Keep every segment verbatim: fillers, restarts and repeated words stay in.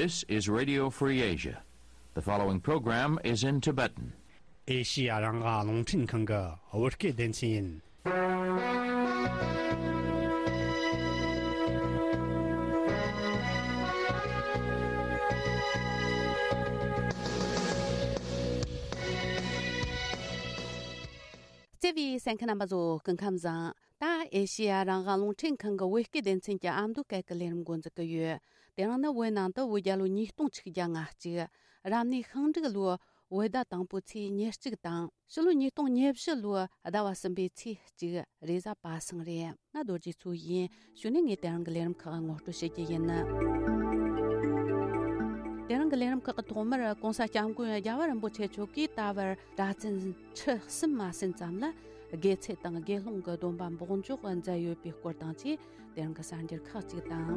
This is Radio Free Asia. The following program is in Tibetan. ཨེ་ཤི་ཡ་རང་དབང་རླུང་འཕྲིན་ཁང་གི་བོད་སྐད་སྡེ་ཚན་ཡིན། བརྩེ་བའི་གསན་མཁན་རྣམ་པ་ཚོ་སྐུ་ཁམས་བཟང་། ད་ཨེ་ཤི་ཡ་རང་དབང་རླུང་འཕྲིན་ཁང་གི་བོད་སྐད་སྡེ་ཚན་གྱི་ཨ་མདོ་སྐད་ཀྱི་ལས་རིམ་འགོ་འཛུགས་ཀྱི་ཡོད། དེ་རིང་ནི་བོད་ནང་དུ་བོད་རྒྱལ་ལོ་ཉིས་སྟོང་ཆིག་བརྒྱ་ང་གཅིག་རབ་གནས་ཤིང་འབྲུག་ལོའི་བོད་ཟླ་དང་པོའི་ཚེས་ཉེར་གཅིག་དང་། ཕྱི་ལོ་ཉིས་སྟོང་ཉེར་བཞི་ལོའི་ཟླ་བ་གསུམ་པའི་ཚེས་གཅིག་རེས་གཟའ་པ་སངས་རེད། ང་རྡོ་རྗེ་མཚོ་ཡིན། གཞུག་ནས་ངས་དེ་རིང་གི་ལས་རིམ་ཁག་ངོ་སྤྲོད་བྱེད་རྒྱུ་ཡིན། དེ་རིང་གི་ལས་རིམ་ཁག་གི་ཐོག་མར་༸གོང་ས་༸སྐྱབས་མགོན་རྒྱལ་བ་རིན་པོ་ཆེ་མཆོག་གིས་ད་བར་གྲྭ་བཙུན་ཁྲི་གསུམ་མ་ཟིན་ཙམ་ལ་དགེ་ཚུལ་དང་དགེ་སློང་གི་སྡོམ་པ་འབོགས་འཇོག་མཛད་ཡོད་པའི་སྐོར་དང་བཅས། དེ་རིང་གི་གསར་འགྱུར་ཁག་ཅིག་དང་།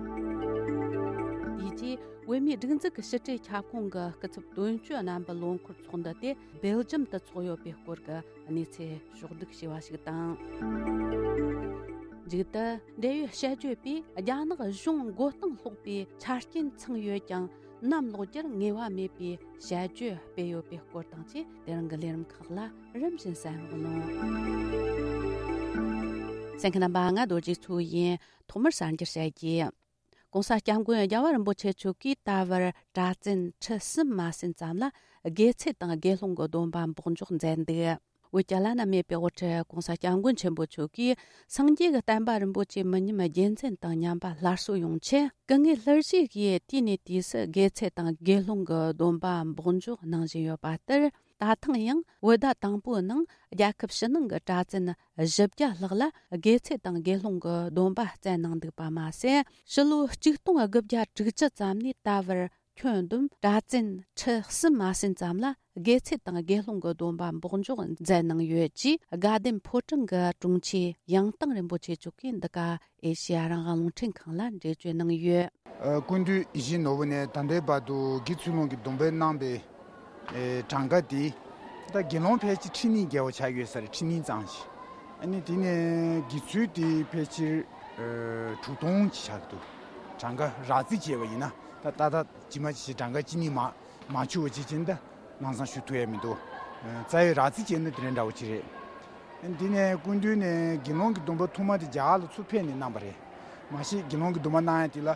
དེ་རྗེས་བོད་མིའི་སྒྲིག་འཛུགས་ཀྱི་ཕྱི་དྲིལ་ཁྱབ་ཁོངས་ཀྱི་སྐུ་ཚབ་དོན་གཅོད་རྣམ་པའི་ལོ་འཁོར་ཚོགས་འདུ་དེ་སྦེལ་ཇམ་དུ་འཚོགས་ཡོད་པའི་སྐོར་གྱི་གནས་ཚུལ་ཕྱོགས་བསྒྲིགས་བྱས་པ་ཞིག་དང་། མཇུག་ཏུ་འབྲེལ་ཡོད་དཔྱད་བརྗོད་པས་རྒྱ་ནག་གཞུང་མགོ་རྟིང་སློག་པའི་ཆ་རྐྱེན་ཚང་ཡོད་ཀྱང་། གནམ་ལོག་རྒྱུར་ངེས་པ་མེད་པའི་དཔྱད་བརྗོད་སྤེལ་ཡོད་པའི་སྐོར་དང་བཅས། དེ་རིང་གི་ལས་རིམ་ཁག་ལ་རིམ་བཞིན་གསན་རོགས་གནང་། གསན་མཁན་རྣམ་པ། ང་རྡོ་རྗེ་མཚོ་ཡིན། ཐོག་མར་གསར་འགྱུར་བཤད་རྒྱུ། ༸གོང་ས་༸སྐྱབས་མགོན་རྒྱལ་བ་རིན་པོ་ཆེ་མཆོག་གིས་ད་བར་གྲྭ་བཙུན་ཁྲི་གསུམ་མ་ཟིན་ཙམ་ལ་དགེ་ཚུལ་དང་དགེ་སློང་གི་སྡོམ་པ་འབོགས་འཇོག་མཛད་འདུག། བོད་ཀྱི་བླ་ན་མེད་པའི་དབུ་ཁྲིད་༸གོང་ས་༸སྐྱབས་མགོན་ཆེན་པོ་མཆོག་གིས་སངས་རྒྱས་ཀྱི་བསྟན་པ་རིན་པོ་ཆེ་མི་ཉམས་རྒྱུན་འཛིན་དང་ཉམས་པ་སླར་གསོ་ཡོང་ཆེད། སྐུ་ངལ་སླར་གཤེགས་ཀྱིས་དུས་ནས་དུས་སུ་དགེ་ཚུལ་དང་དགེ་སློང་གི་སྡོམ་པ་འབོགས་འཇོག་གནང་བཞིན་ཡོད་པ་ལྟར། ད་ཐེངས་ཡང་བོད་ཟླ་དང་པོའི་ནང་རྒྱལ་ཁབ་ཕྱི་ནང་གི་གྲྭ་བཙུན་བཞི་བརྒྱ་ལྷག་ལ་དགེ་ཚུལ་དང་དགེ་སློང་གི་སྡོམ་པ་བསྩལ་གནང་འདུག་པ་མ་ཟད། ཕྱི་ལོ་ཆིག་སྟོང་དགུ་བརྒྱ་དྲུག་ཅུ་ཙམ་ནས་ད་བར་ཁྱོན་བསྡོམས་གྲྭ་བཙུན་ཁྲི་གསུམ་མ་ཟིན་ཙམ་ལ་དགེ་ཚུལ་དང་དགེ་སློང་གི་སྡོམ་པ་འབོགས་འཇོག་མཛད་གནང་ཡོད་ཅེས། དགའ་ལྡན་ཕོ་བྲང་གི་དྲུང་ཆེ་ཡང་དང་རིན་པོ་ཆེ་མཆོག་གིས་འདི་ག་ཨེ་ཤེ་ཡ་རང་དབང་རླུང་འཕྲིན་ཁང་ལ་འགྲེལ་བརྗོད་གནང་ཡོད། ཨ། སྐུ་མདུན་ཡིད་བཞིན་ནོར་བུ་ནས་ད་ལྟའི་བར་དུ་དགེ་ཚུལ་སློང་གི་སྡོམ་པ་གནང་པའི་ཨེ་གྲངས་ཀ་དེ། ད་དགེ་སློང་ཕལ་ཆེར་ཁྲི་གཉིས་བརྒལ་བ་ཆགས་ཡོད་ས་རེད། ཁྲི་གཉིས་ཙམ་ཞིག་ཨ་ནི་དེ་ནས་དགེ་ཚུལ་དེ་ཕལ་ཆེར་ཨེ་དྲུག་སྟོང་ཅིག་ཆགས་འདུག་གྲངས་ཀ་རགས་རྩིས་བྱས་པ་ཡིན་ན། ད་ཏག་ཏག་ཇི་མ་ཇི་བཞིན་གྲངས་ཀ་གཅིག་གཉིས་མ་མ་འཆུག་པ་ཅིག་བྱས་ན་ད་ལམ་སང་ཞུ་ཐུབ་ཡ་མི་འདུག་ཨེ་རྩ་བའི་རགས་རྩིས་བྱས་ན་དེ་འདྲ་འདྲ་བོ་ཅིག་རེད། ཨ་ནི་དེ་ནས་སྐུ་མདུན་ནས་དགེ་སློང་གི་སྡོམ་པ་ཐོག་མ་དེ་རྒྱ་གར་ལ་ཚུར་ཕེབས་ནས་གནང་པ་རེད། མ་གཞི་དགེ་སློང་གི་སྡོམ་པ་གནང་ཡ་དེ་ལ།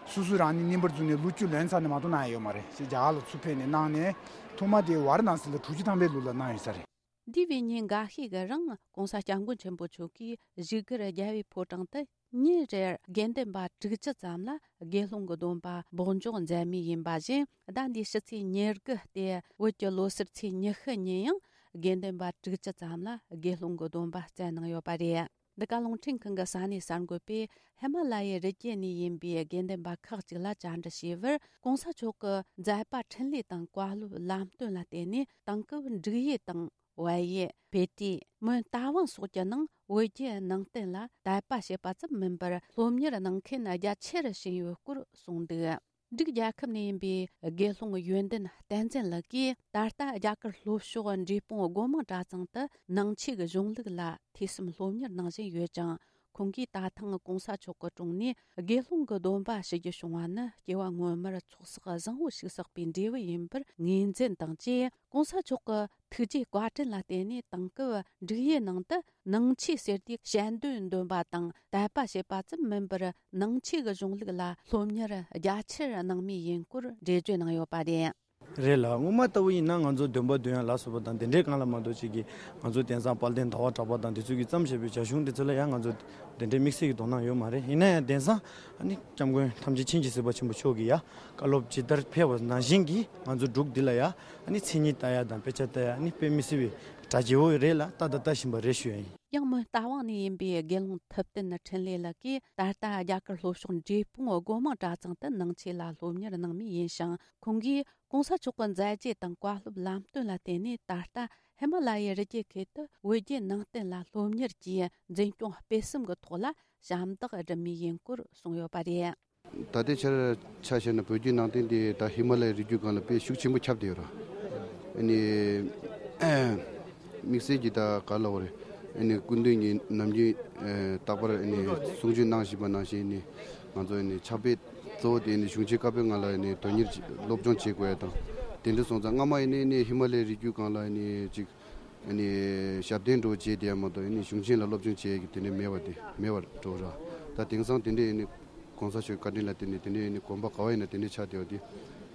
སོ་སོ་རང་ཉིད་རྙིང་པར་བརྫུས་ནས་ལོ་བཅུ་ལོན་ཚར་ནས་མ་གཏོགས་གནང་ཡ་ཡོད་མ་རེད། ཞེས་རྒྱ་གར་ལ་ཚུར་ཕེབས་ནས་གནང་ནས། ཐོག་མ་དེ་ཝཱ་ར་ཎ་སི་ལ་དྲུག་ཅུ་ཐམ་པའི་ལོ་ལ་གནང་ཡོད་ས་རེད། འདས་པའི་ཉིན་འགའ་ཤས་ཀྱི་རིང་༸གོང་ས་༸སྐྱབས་མགོན་ཆེན་པོ་མཆོག་གིས་བཞུགས་སྒར་རྒྱལ་བའི་ཕོ་བྲང་དུ་ཉིན་རེར་དགེ་འདུན་པ་དྲུག་ཅུ་ཙམ་ལ་དགེ་སློང་གི་སྡོམ་པ་འབོགས་འཇོག་མཛད་མུས་ཡིན་པ་བཞིན། ཟླ་འདིའི་ཕྱི་ཚེས་ཉེར་དགུ་སྟེ་བོད་ཀྱི་ལོ་གསར་ཚེས་ཉི་ཤུ་ཉིན་ཡང་དགེ་འདུན་པ་དྲུག་ཅུ་ཙམ་ལ་དགེ་སློང་གི་སྡོམ་པ་བསྩལ་གནང་ཡོད་པ་རེད། འདི་ག་རླུང་འཕྲིན་ཁང་གི་ས་གནས་གསར་འགོད་པས་ཧི་མ་ལ་ཡའི་རི་རྒྱུད་ནས་ཡིན་པའི་དགེ་འདུན་པ་ཁག་ཅིག་ལ་བཅར་འདྲི་བྱས་པར། ༸གོང་ས་མཆོག་གི་མཛད་པ་འཕྲིན་ལས་དང་བཀའ་སློབ་ལམ་སྟོན་ལ་བརྟེན་ནས་དེང་སྐབས་འབྲུག་ཡུལ་དང་བལ་ཡུལ། བྷེ་ཏི། མོན་རྟ་དབང་སོགས་ཀྱི་ནང་བོད་བརྒྱུད་ནང་བསྟན་ལ་དད་པ་བྱེད་པ་ཙམ་མིན་པར་སློབ་གཉེར་གནང་མཁན་རྒྱ་ཆེ་རུ་ཕྱིན་ཡོད་སྐོར་གསུངས་འདུག་འབྲུག་རྒྱལ་ཁབ་ནས་ཡིན་པའི་དགེ་སློང་ཡོན་ཏན་བསྟན་འཛིན་ལགས་ཀྱིས། ད་ལྟ་རྒྱ་གར་ལྷོ་ཕྱོགས་འབྲས་སྤུངས་སྒོ་མང་གྲྭ་ཚང་དུ་ནང་ཆོས་ཀྱི་གཞུང་ལུགས་ལ་ཐོས་བསམ་སློབ་གཉེར་གནང་བཞིན་ཡོད་ཅིང་། ཁོང་གིས་ད་ཐེངས་༸གོང་ས་མཆོག་གི་དྲུང་ནས་དགེ་སློང་གི་སྡོམ་པ་ཞུ་རྒྱུ་བྱུང་བ་ནི་སྐྱེ་བ་སྔོན་མར་ཚོགས་བསགས་བཟང་བོ་ཞིག་བསགས་པའི་འབྲས་བུ་ཡིན་པར་ངོས་འཛིན་དང་བཅས། ༸གོང་ས་མཆོག་གི་ཐུགས་རྗེའི་བཀའ་དྲིན་ལ་བརྟེན་ནས་དེང་སྐབས་འབྲུག་ཡུལ་ནང་དུ་ནང་ཆོས་ཟེར་དུས་དཔྱད་འདོན་འདོན་པ་དང་དད་པ་བྱེད་པ་ཙམ་མིན་པར། ནང་ཆོས་ཀྱི་གཞུང་ལུགས་ལ་སློབ་གཉེར་རྒྱ་ཆེར་གནང་མུས་ཡིན་སྐོར་འགྲེལ་བརྗོད་གནང་ཡོད་པ་རེད། རེད་ལ། སྔོན་མ་ལྟ་བུ་ཡིན་ན་ང་ཚོ་འདོན་པ་འདོན་ཡ་ལ་སོགས་པ་དང་དེ་འདྲའི་སྒང་ལ་མ་གཏོགས་ཅིག་གིས་ང་ཚོ་དེང་སང་དཔལ་ལྡན་ཟླ་བ་གྲགས་པ་དང་དེ་ཚོ་གིས་བརྩམས་བཞག་པའི་བྱ་གཞུང་དེ་ཚོ་ལ་ཡང་ང་ཚོ་དེ་འདྲའི་དམིགས་བསལ་གྱི་དོ་སྣང་ཡོད་མ་རེད། ཡིན་ན་ཡང་དེང་སང་ཨ་ནི་སྐྱབས་མགོན་ཐམས་ཅད་མཁྱེན་ཅིང་གཟིགས་པ་ཆེན་པོ་མཆོག་གིས་ཡ་བཀའ་སློབ་ཇི་ལྟར་ཕེབས་པ་ནང་བཞིན་གྱིས་ང་ཚོ་འབྲུག་འདི་ལ་ཡ་ཨ་ནི་མཚན་ཉིད་ལྟ་ཡ་དང་དཔེ་ཆ་ལྟ་ཡ་ཨ་ནི་དཔེ་མི་སྲིད་པའི་གྲ་རྒྱས་པོ་རེད་ལ། ལྟ་དང་ལྟ་བཞིན་པ་རེད་ཞུ་ཡ་ཡིན། ཡང་མོན་རྟ་དབང་ནས་ཡིན་པའི་དགེ་སློང་ཐུབ་བསྟན་འཕྲིན་ལས་ལགས་ཀྱིས། ད་ལྟ་རྒྱ་གར་ལྷོ་ཕྱོགས་འབྲས་སྤུངས་སྒོ་མང་གྲྭ་ཚང་དུ་ནང་ཆོས་ལ་སློབ་གཉེར་གནང་མུས་ཡིན་ཞིང་། ཁོང་གིས་༸གོང་ས་མཆོག་གི་མཛད་རྗེས་དང་བཀའ་སློབ་ལམ་སྟོན་ལ་བརྟེན་ནས། ད་ལྟ་ཧི་མ་ལ་ཡའི་རི་རྒྱུད་ཁུལ་དུ་བོད་བརྒྱུད་ནང་བསྟན་ལ་སློབ་གཉེར་གྱི་འཛིན་སྐྱོང་སྤེལ་གསུམ་གྱི་ཐོག་ལ་ཞབས་འདེགས་སྒྲུབ་མུས་ཡིན་སྐོར་གསུངས་ཡོད་པ་རེད། ད་ལྟའི་ཆར་ཆ་བཞག་ན་བོད་བརྒྱུད་ནང་བསྟན་དེ་ད་ཧི་མ་ལ་ཡའི་རི་རྒྱུད་སྒང་ལ་དཔེ་ཤུགས་ཆེན་པོ་ཁྱབ་བསྡད་ཡོད་རེད། ཨ་ནི་དམིགས་བསལ་གྱི་ད་ག་ལབ་དགོས་རེད། ཨ་ནི་སྐུ་མདུན་གྱིས་ནམ་རྒྱུན་ཨེ་རྟག་པར་ཨ་ནི་གསུང་ཆོས་གནང་བཞིན་པ་ནང་བཞིན་ནི་ང་ཚོ་ཨ་ནི་ཕྱག་དཔེ་ གཙོ་བོ་དེ་ནི་གཞུང་ཆེན་བཀའ་པོད་ལྔ་ལ་ནི་དོན་གཉེར་བྱེད་སློབ་སྦྱོང་བྱེད་དགོས་ཡ་དང་། དེ་འདྲ་སོང་ཙང་སྔ་མ་ཡིན་ནི་ནི་ཧི་མ་ལའི་རི་རྒྱུད་སྒང་ལ་ནི་ཅིག་ནི་ཞབས་བརྟན་འགྲོ་བྱེད་དེ་ཡ་མ་གཏོགས་ནི་གཞུང་ཆེན་ལ་སློབ་སྦྱོང་བྱེད་ཀྱི་དེ་ནི་མེད་པ་དེ་མེད་པར་འགྲོ་ར། ད་དེང་སང་དེ་འདྲ་ཡིན་ནི་གོང་ས་མཆོག་བཀའ་དྲིན་ལ་དེ་ནི་དེ་འདྲ་ཡིན་ནི་དགོན་པ་ག་བ་ཡིན་ན་དེ་འདྲ་ཆགས་བསྡད་པ་དེ་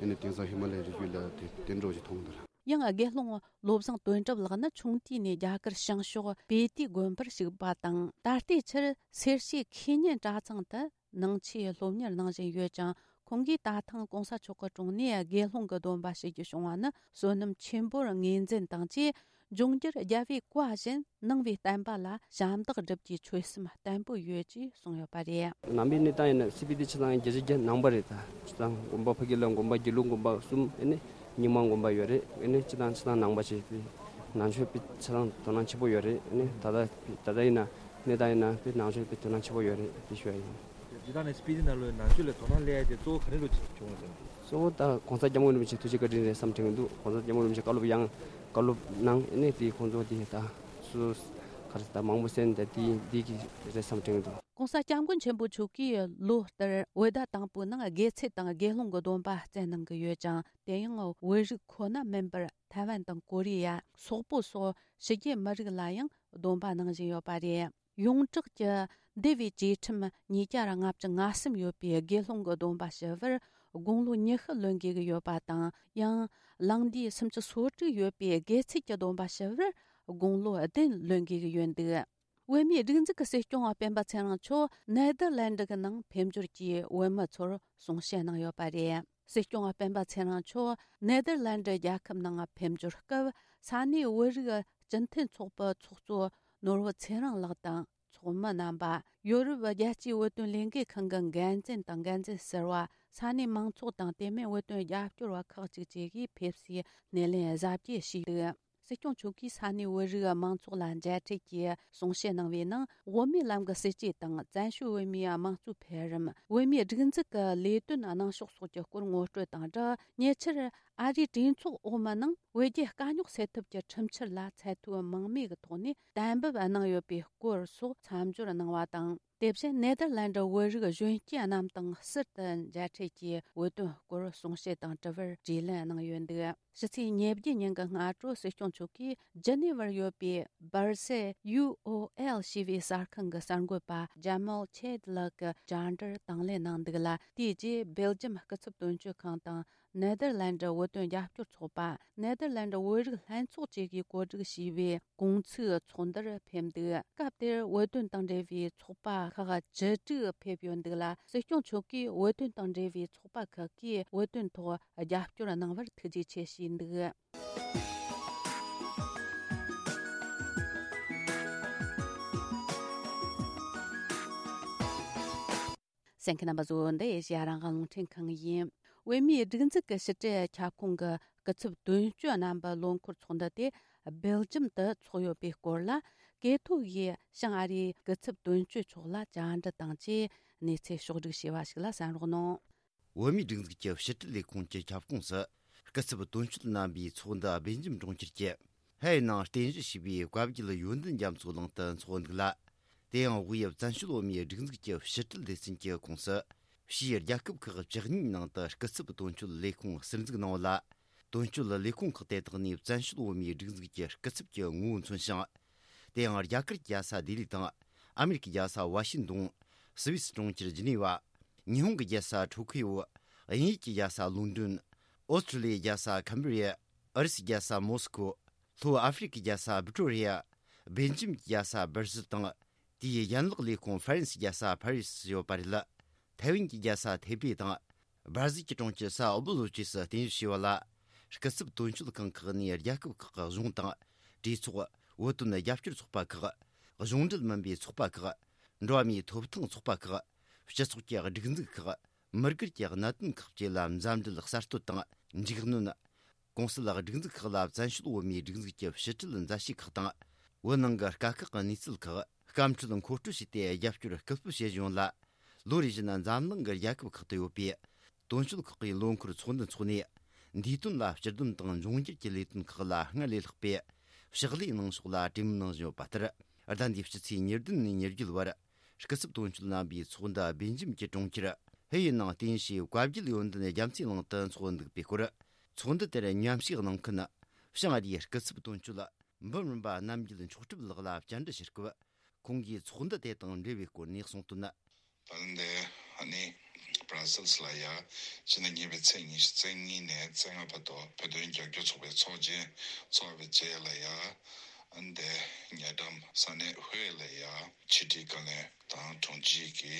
ཡིན་ནི་དེང་སང་ཧི་མ་ལའི་རི་རྒྱུད་ལ་དེ་དེ་འགྲོ་ཞིག་མཐོང་གི་འདུག་ཡང་དགེ་སློང་བློ་བཟང་དོན་གྲུབ་ལགས་ནི་ཆུང་དུས་ནས་རྒྱ་གར་བྱང་ཕྱོགས་སྤི་ཏི་དགོན་པར་ཞུགས་པ་དང་། ད་ལྟའི་ཆར་སེར་བྱེས་ཁེ་ཉན་གྲྭ་ཚང་དུ་ནང་ཆོས་སློབ་གཉེར་གནང་བཞིན་ཡོད་ཅིང་། ཁོང་གིས་ད་ཐེངས་གོང་ས་མཆོག་གི་དྲུང་ནས་དགེ་སློང་གི་སྡོམ་པ་ཞུ་རྒྱུ་བྱུང་བ་ནི་བསོད་ནམས་ཆེན་པོར་ངོས་འཛིན་དང་བཅས། འབྱུང་འགྱུར་རྒྱལ་བའི་བཀའ་བཞིན་གནང་བའི་བསྟན་པ་ལ་ཞབས་འདེགས་སྒྲུབ་རྒྱུའི་ཆོད་སེམས་བརྟན་པོ་ཡོད་ཅེས་གསུངས་ཡོད་པ་རེད། ནང་པའི་གནས་སྟངས་ཡིན་ན་སི་པི་ཏི་ཆུ་ཚང་བརྒྱད་ཅུ་གྱ་ནང་པ་རེད། ད་ཆུ་ཚང་དགོན་པ་ཕ་གི་ལ་དགོན་པ་དགེ་ལུགས་དགོན་པ་གསུམ་ཨེ་ནི་རྙིང་མ་དགོན་པ་ཡོད་རེད། ཨེ་ནི་སྤྱི་བཏང་ཆུ་ཚང་ནང་པ་ཞིག་པའི་ནང་ཆོས་པའི་ཆུ་ཚང་དོ་སྣང་ཆེན་པོ་ཡོད་རེད། ཨེ་ནི་ད་ལྟ་ད་ལྟ་ཡིན་ན་གནས་སྟངས་ཡིན་ན་པའི་ནང་ཆོས་པའི་དོ་སྣང་ཆེན་པོ་ཡོད་རེད། དེ་ཞུ་ཡ་ཡིན། འདི་དག་ནི་སྤི་ཏི་ནང་ལོགས་ནང་ཆོས་ལ་དོ་སྣང་སླེབས་ཡ་དེ་གཙོ་བོ་ག་རེ་ལོ་བྱུང་བ་ཟེར་ན། གཙོ་བོ་ད་གོང་ས་སྐྱབས་མགོན་རིན་པོ་ཆེ་ཐུགས་རྗེ་བཀའ་དྲིན་རེད་བསམ་དྲན་གྱི་འདུག་གོང་ས་སྐྱབས་མགོན་རིན་པོ་ཆེ་བཀའ་སློབ་ཡང་བཀའ་སློབ་གནང་ཨེ་ནི་དེ་ཁོང་ཚོ་དེ་ད་སུ་ག་རེ་ད་མང་པོ་གསན་ད་དེ་དེ་གི་རེད་བསམ་དྲན་གྱི་འདུག་གོང་ས་སྐྱབས་མགོན་ཆེན་པོ་མཆོག་གིས་ལོ་ལྟར་བོད་ཟླ་དང་པོའི་ནང་དགེ་ཚུལ་དང་དགེ་སློང་གི་སྡོམ་པ་བསྩལ་གནང་གི་ཡོད་ཅིང་། དེ་ཡང་བོད་རིགས་ཁོ་ན་མིན་པར་ཐའེ་ཝན་དང་ཀོ་རི་ཡ། སོག་པོ་སོགས་ཕྱི་རྒྱལ་མི་རིགས་ལ་ཡང་སྡོམ་པ་གནང་བཞིན་ཡོད་པ་རེད། ཡོངས་གྲགས་ཀྱི་འདུལ་བའི་བཅས་ཁྲིམས་ཉིས་བརྒྱ་ལྔ་བཅུ་ང་གསུམ་ཡོད་པའི་དགེ་སློང་གི་སྡོམ་པ་ཞུ་བར་དགུང་ལོ་ཉི་ཤུ་ལོན་དགོས་ཀྱི་ཡོད་པ་དང་། ཡང་ལང་དུས་སུམ་ཅུ་སོ་དྲུག་ཡོད་པའི་དགེ་ཚུལ་གྱི་སྡོམ་པ་ཞུ་བར་དགུང་ལོ་བདུན་ལོན་དགོས་ཀྱི་ཡོད་འདུག་བོད་མིའི་སྒྲིག་འཛུགས་ཀྱི་སྲིད་སྐྱོང་བ་སྤེན་པ་ཚེ་རིང་མཆོག་ནེ་དར་ལན་ཌི་གི་ནང་ཕེབས་འབྱོར་གྱིས་བོད་མི་ཚོར་གསུང་བཤད་གནང་ཡོད་པ་རེད། སྲིད་སྐྱོང་བ་སྤེན་པ་ཚེ་རིང་མཆོག་ནེ་དར་ལན་ཌི་རྒྱལ་ཁབ་ནང་ཕེབས་འབྱོར་སྐབས། ས་གནས་བོད་རིགས་སྤྱི་མཐུན་ཚོགས་པའི་ཚོགས་གཙོ་ནོར་བུ་ཚེ་རིང་ལགས་དང་། ཚོགས་མི་རྣམ་པ། ཡོ་རོབ་རྒྱལ་སྤྱིའི་བོད་དོན་ལས་འགུལ་ཁང་གི་འགན་འཛིན་དང་འགན་འཛིན་ཟུར་པ། ས་གནས་མང་ཚོགས་དང་། དེ་མིན་བོད་དོན་རྒྱབ་སྐྱོར་བ་ཁག་ཅིག་བཅས་ཀྱིས་ཕེབས་སའི་སྣེ་ལེན་གཟབ་རྒྱས་ཞུས་འདུག་སྲིད་སྐྱོང་མཆོག་གིས་ས་གནས་བོད་རིགས་མང་ཚོགས་ལ་མཇལ་འཕྲད་ཀྱིས་གསུང་བཤད་གནང་བའི་ནང་། བོད་མིའི་ལམ་གྱི་སྲིད་བྱུས་དང་། བཙན་བྱོལ་བོད་མིའི་དམངས་གཙོའི་འཕེལ་རིམ། བོད་མིའི་སྒྲིག་འཛུགས་ཀྱི་ལས་དོན་གནང་ཕྱོགས་སོགས་ཀྱི་སྐོར་ངོ་སྤྲོད་དང་སྦྲགས། ཉེ་ཆར་ཨ་རིའི་གྲོས་ཚོགས་འོག་མའི་ནང་བོད་རྒྱའི་དཀའ་རྙོག་སེལ་ཐབས་ཀྱི་ཁྲིམས་འཆར་ལ་ཚད་མཐོའི་དམིགས་མེད་ཀྱི་ཐོག་ནས་གཏན་འབེབས་གནང་ཡོད་པའི་སྐོར་སོགས་མཚམས་སྦྱོར་གནང་བ་དང་། དེ་བཞིན་ནེ་དར་ལན་ཌི་བོད་རིགས་གཞོན་སྐྱེས་རྣམས་དང་ཟུར་དུ་མཇལ་འཕྲད་ཀྱིས་བོད་དོན་སྐོར་གསུང་བཤད་དང་དྲི་བར་དྲིས་ལན་གནང་ཡོད་འདུག་ཕྱི་ཚེས་ཉེར་བརྒྱད་ཉིན་གྱི་སྔ་དྲོ་སྲིད་སྐྱོང་མཆོག་གིས་ཇི་ནི་ཝར་ཡོད་པའི་སྦར་སེལ་ཡུ་ཨོ་ཨེལ་ཞེས་པའི་གསར་ཁང་གི་གསར་འགོད་པ་ཇ་མལ་ཆེད་ལགས་ཀྱི་བཅར་འདྲིར་དང་ལེན་གནང་འདུག་ལ། དེའི་རྗེས་སྦེལ་ཇམ་སྐུ་ཚབ་དོན་གཅོད་ཁང་དང་། ནེ་དར་ལན་ཌི་བོད་དོན་རྒྱབ་སྐྱོར་ཚོགས་པ། ནེ་དར་ལན་ཌི་བོད་རིགས་ལྷན་ཚོགས་བཅས་ཀྱིས་གོ་སྒྲིག་བྱས་པའི་གུང་ཚིགས་ཚོགས་འདུར་ཕེབས་འདུག་སྐབས་དེར་བོད་དོན་དང་འབྲེལ་བའི་ཚོགས་པ་ཁག་བཅུ་དྲུག་ཕེབས་ཡོད་འདུག་ལ། སྲིད་སྐྱོང་མཆོག་གིས་བོད་དོན་དང་འབྲེལ་བའི་ཚོགས་པ་ཁག་གིས་བོད་དོན་ཐོག་རྒྱབ་སྐྱོར་གནང་བར་ཐུགས་རྗེ་ཆེ་ཞུས་འདུག་གསན་མཁན་རྣམ་པ་ཚོ། འདི་ཨེ་ཤེ་ཡ་རང་དབང་རླུང་འཕྲིན་ཁང་ཡིན། བོད་མིའི་སྒྲིག་འཛུགས་ཀྱི་ཕྱི་དྲིལ་ཁྱབ་ཁོངས་ཀྱི་སྐུ་ཚབ་དོན་གཅོད་རྣམ་པའི་ལོ་འཁོར་ཚོགས་འདུ་དེ་སྦེལ་ཇམ་དུ་འཚོགས་ཡོད་པའི་སྐོར་ལ། ཀེ་ཐོ་ཡིས་བྱང་ཨ་རིའི་སྐུ་ཚབ་དོན་གཅོད་མཆོག་ལ་བཅར་འདྲི་དང་བཅས་གནས་ཚུལ་ཕྱོགས་བསྒྲིགས་བྱས་པ་ཞིག་ལ་གསན་རོགས་གནང་། བོད་མིའི་སྒྲིག་འཛུགས་ཀྱི་ཕྱི་དྲིལ་ལས་ཁུངས་ཀྱི་ཁྱབ་ཁོངས་སུ། སྐུ་ཚབ་དོན་གཅོད་རྣམ་པའི་ཚོགས་འདུ་སྦེལ་ཇམ་གྲོང་ཁྱེར་གྱི་ཧའེ་ནང་རྟེན་གཞི་བྱས་པའི་བཀའ་བརྒྱུད་ཡོན་ཏན་རྒྱ་མཚོའི་གླིང་དུ་འཚོགས་འདུག་ལ། དེ་ཡང་དབུས་བཙན་བྱོལ་བོད་མིའི་སྒྲིག་འཛུགས་ཀྱི་ཕྱི་དྲིལ་སྡེ་ཚན་གྱི་ཁོངས་སུ། ཕྱིའི་རྒྱལ་ཁབ་ཁག་བཅུ་གཉིས་ནང་དུ་སྐུ་ཚབ་དོན་གཅོད་ལས་ཁུངས་ཟུར་འཛུགས་གནང་བ་ལ། དོན་གཅོད་ལས་ཁུངས་ཁག་དེ་དག་ནས་བཙན་བྱོལ་བོད་མིའི་སྒྲིག་འཛུགས་ཀྱི་སྐུ་ཚབ་ཀྱི་ངོ་བོ་མཚོན་ཞིང་། དེ་ཡང་རྒྱ་གར་གྱི་རྒྱལ་ས་ལྡི་ལི་དང་། ཨ་མེ་རི་ཀའི་རྒྱལ་ས་ཝ་ཤིང་ཏོན། སུད་སི་གྲོང་ཁྱེར་ཇི་ནི་ཝ། ཉི་ཧོང་གི་རྒྱལ་ས་ཊོ་ཁི་ཡོ། དབྱིན་ཡུལ་གྱི་རྒྱལ་ས་ལོན་ཌོན། ཨོ་སི་ཀྲི་ལི་ཡའི་རྒྱལ་ས་ཁམ་བྷི་རི་ཡ། ཨུ་རུ་སུའི་རྒྱལ་ས་མོ་སི་ཀོ། ལྷོ་ཨ་ཧྥེ་རི་ཁའི་རྒྱལ་ས་བི་ཀྲོ་རི་ཡ། སྦེལ་ཇམ་གྱི་རྒྱལ་ས་སྦར་སིལ་དང་། དེའི་ཡན་ལག་ལས་ཁུངས་ཧྥ་རན་སིའི་རྒྱལ་ས་ཕ་རི་སིར་ཡོད་པ་རེད། ཐའེ་ཝན་གྱི་རྒྱལ་ས་ཐེ་པེ་དང་། སྦར་ཟིལ་གྱི་གྲོང་ཁྱེར་སའོ་པོ་ལོ་བཅས་སུ་རྟེན་གཞི་བྱས་པ་ལ། སྐུ་ཚབ་དོན་གཅོད་ཁང་ཁག་ནས་རྒྱལ་ཁབ་ཁག་གི་གཞུང་དང་། གྲོས་ཚོགས། བོད་དོན་རྒྱབ་སྐྱོར་ཚོགས་པ་ཁག་གཞུང་འབྲེལ་མིན་པའི་ཚོགས་པ་ཁག་འགྲོ་བ་མིའི་ཐོབ་ཐང་ཚོགས་པ་ཁག་སྤྱི་ཚོགས་ཀྱི་སྒྲིག་འཛུགས་ཁག་མི་སྒེར་གྱི་གནད་དོན་ཁག་བཅས་ལ་མཛའ་འབྲེལ་གསར་གཏོད་དང་། འཇིགས་སྣོན། གོང་གསལ་སྒྲིག་འཛུགས་ཁག་ལ་བཙན་བྱོལ་བོད་མིའི་སྒྲིག་འཛུགས་ཀྱི་ཕྱི་དྲིལ་མཛད་བྱེད་ཁག་དང་། བོད་ནང་གི་དཀའ་ཁག་གི་གནས་ཚུལ་ཁག་སྐམ་འཕྲལ་མཁོ་སྤྲོད་བྱས་ཏེ་རྒྱབ་སྐྱོར་སྐུལ་སྤེལ་བྱེད་བཞིན་ཡོད་ལ། ལོ་རེ་བཞིན་འཛམ་གླིང་གི་རྒྱལ་ཁབ་ཁག་ཏུ་ཡོད་པའི་དོན་གཅོད་ཁག་གི་ལོ་འཁོར་ཚོགས་འདུ་འཚོགས་ནས། འདས་དོན་ལ་སྤྱི་དོན་དང་འབྱུང་འགྱུར་གྱི་ལས་དོན་ཁག་ལ་སྔར་ལས་ལྷག་པའི་ཕྱག་ལས་གནང་ཕྱོགས་ལ་གྲོས་མོལ་གནང་བཞིན་ཡོད་པ་ལྟར། ཟླ་འདིའི་ཕྱི་ཚེས་ཉེར་བདུན་ནས་ཉེར་བརྒྱད་བར། སྐུ་ཚབ་དོན་གཅོད་རྣམ་པའི་ཚོགས་འདུ་སྦེལ་ཇམ་གྱི་གྲོང་ཁྱེར་ ཕུ་ཡུ་ནང་རྟེན་གཞིའི་བཀའ་བརྒྱུད་ཡོན་ཏན་རྒྱ་མཚོའི་གླིང་དུ་འཚོགས་འདུག་པའི་སྐོར། ཚོགས་འདུ་དེར་མཉམ་ཞུགས་གནང་མཁན་ཞིང་ཨ་རིའི་སྐུ་ཚབ་དོན་གཅོད་འབུམ་རམས་པ་རྣམ་རྒྱལ་མཆོག་གྲུབ་ལགས་ལ་བཅར་འདྲི་ཞུ་སྐབས། ཁོང་གིས་ཚོགས་འདུ་དེ་དང་འབྲེལ་བའི་སྐོར་ནས་གསུངས་དོན། ད་ལན་དེ་ཨ་ནི་Brussels་ལ་ཡ་ཕྱི་ཟླ་གཉིས་པའི་ཚེས་ཉི་ཤུ་རྩ་གཉིས་ནས་རྩ་ལྔ་བར་དུ་བོད་དོན་རྒྱབ་སྐྱོར་ཚོགས་པའི་ཚོགས་ཆེན་ཚོགས་པའི་རྗེས་ལ་ཡ། ཨ་ནི་དེ་ཉེ་འགྲམ་ས་གནས་ཧུའེ་ལ་ཡ་ཕྱི་དྲིལ་བཀའ་བློན་དང་དྲུང་ཆེ་གི་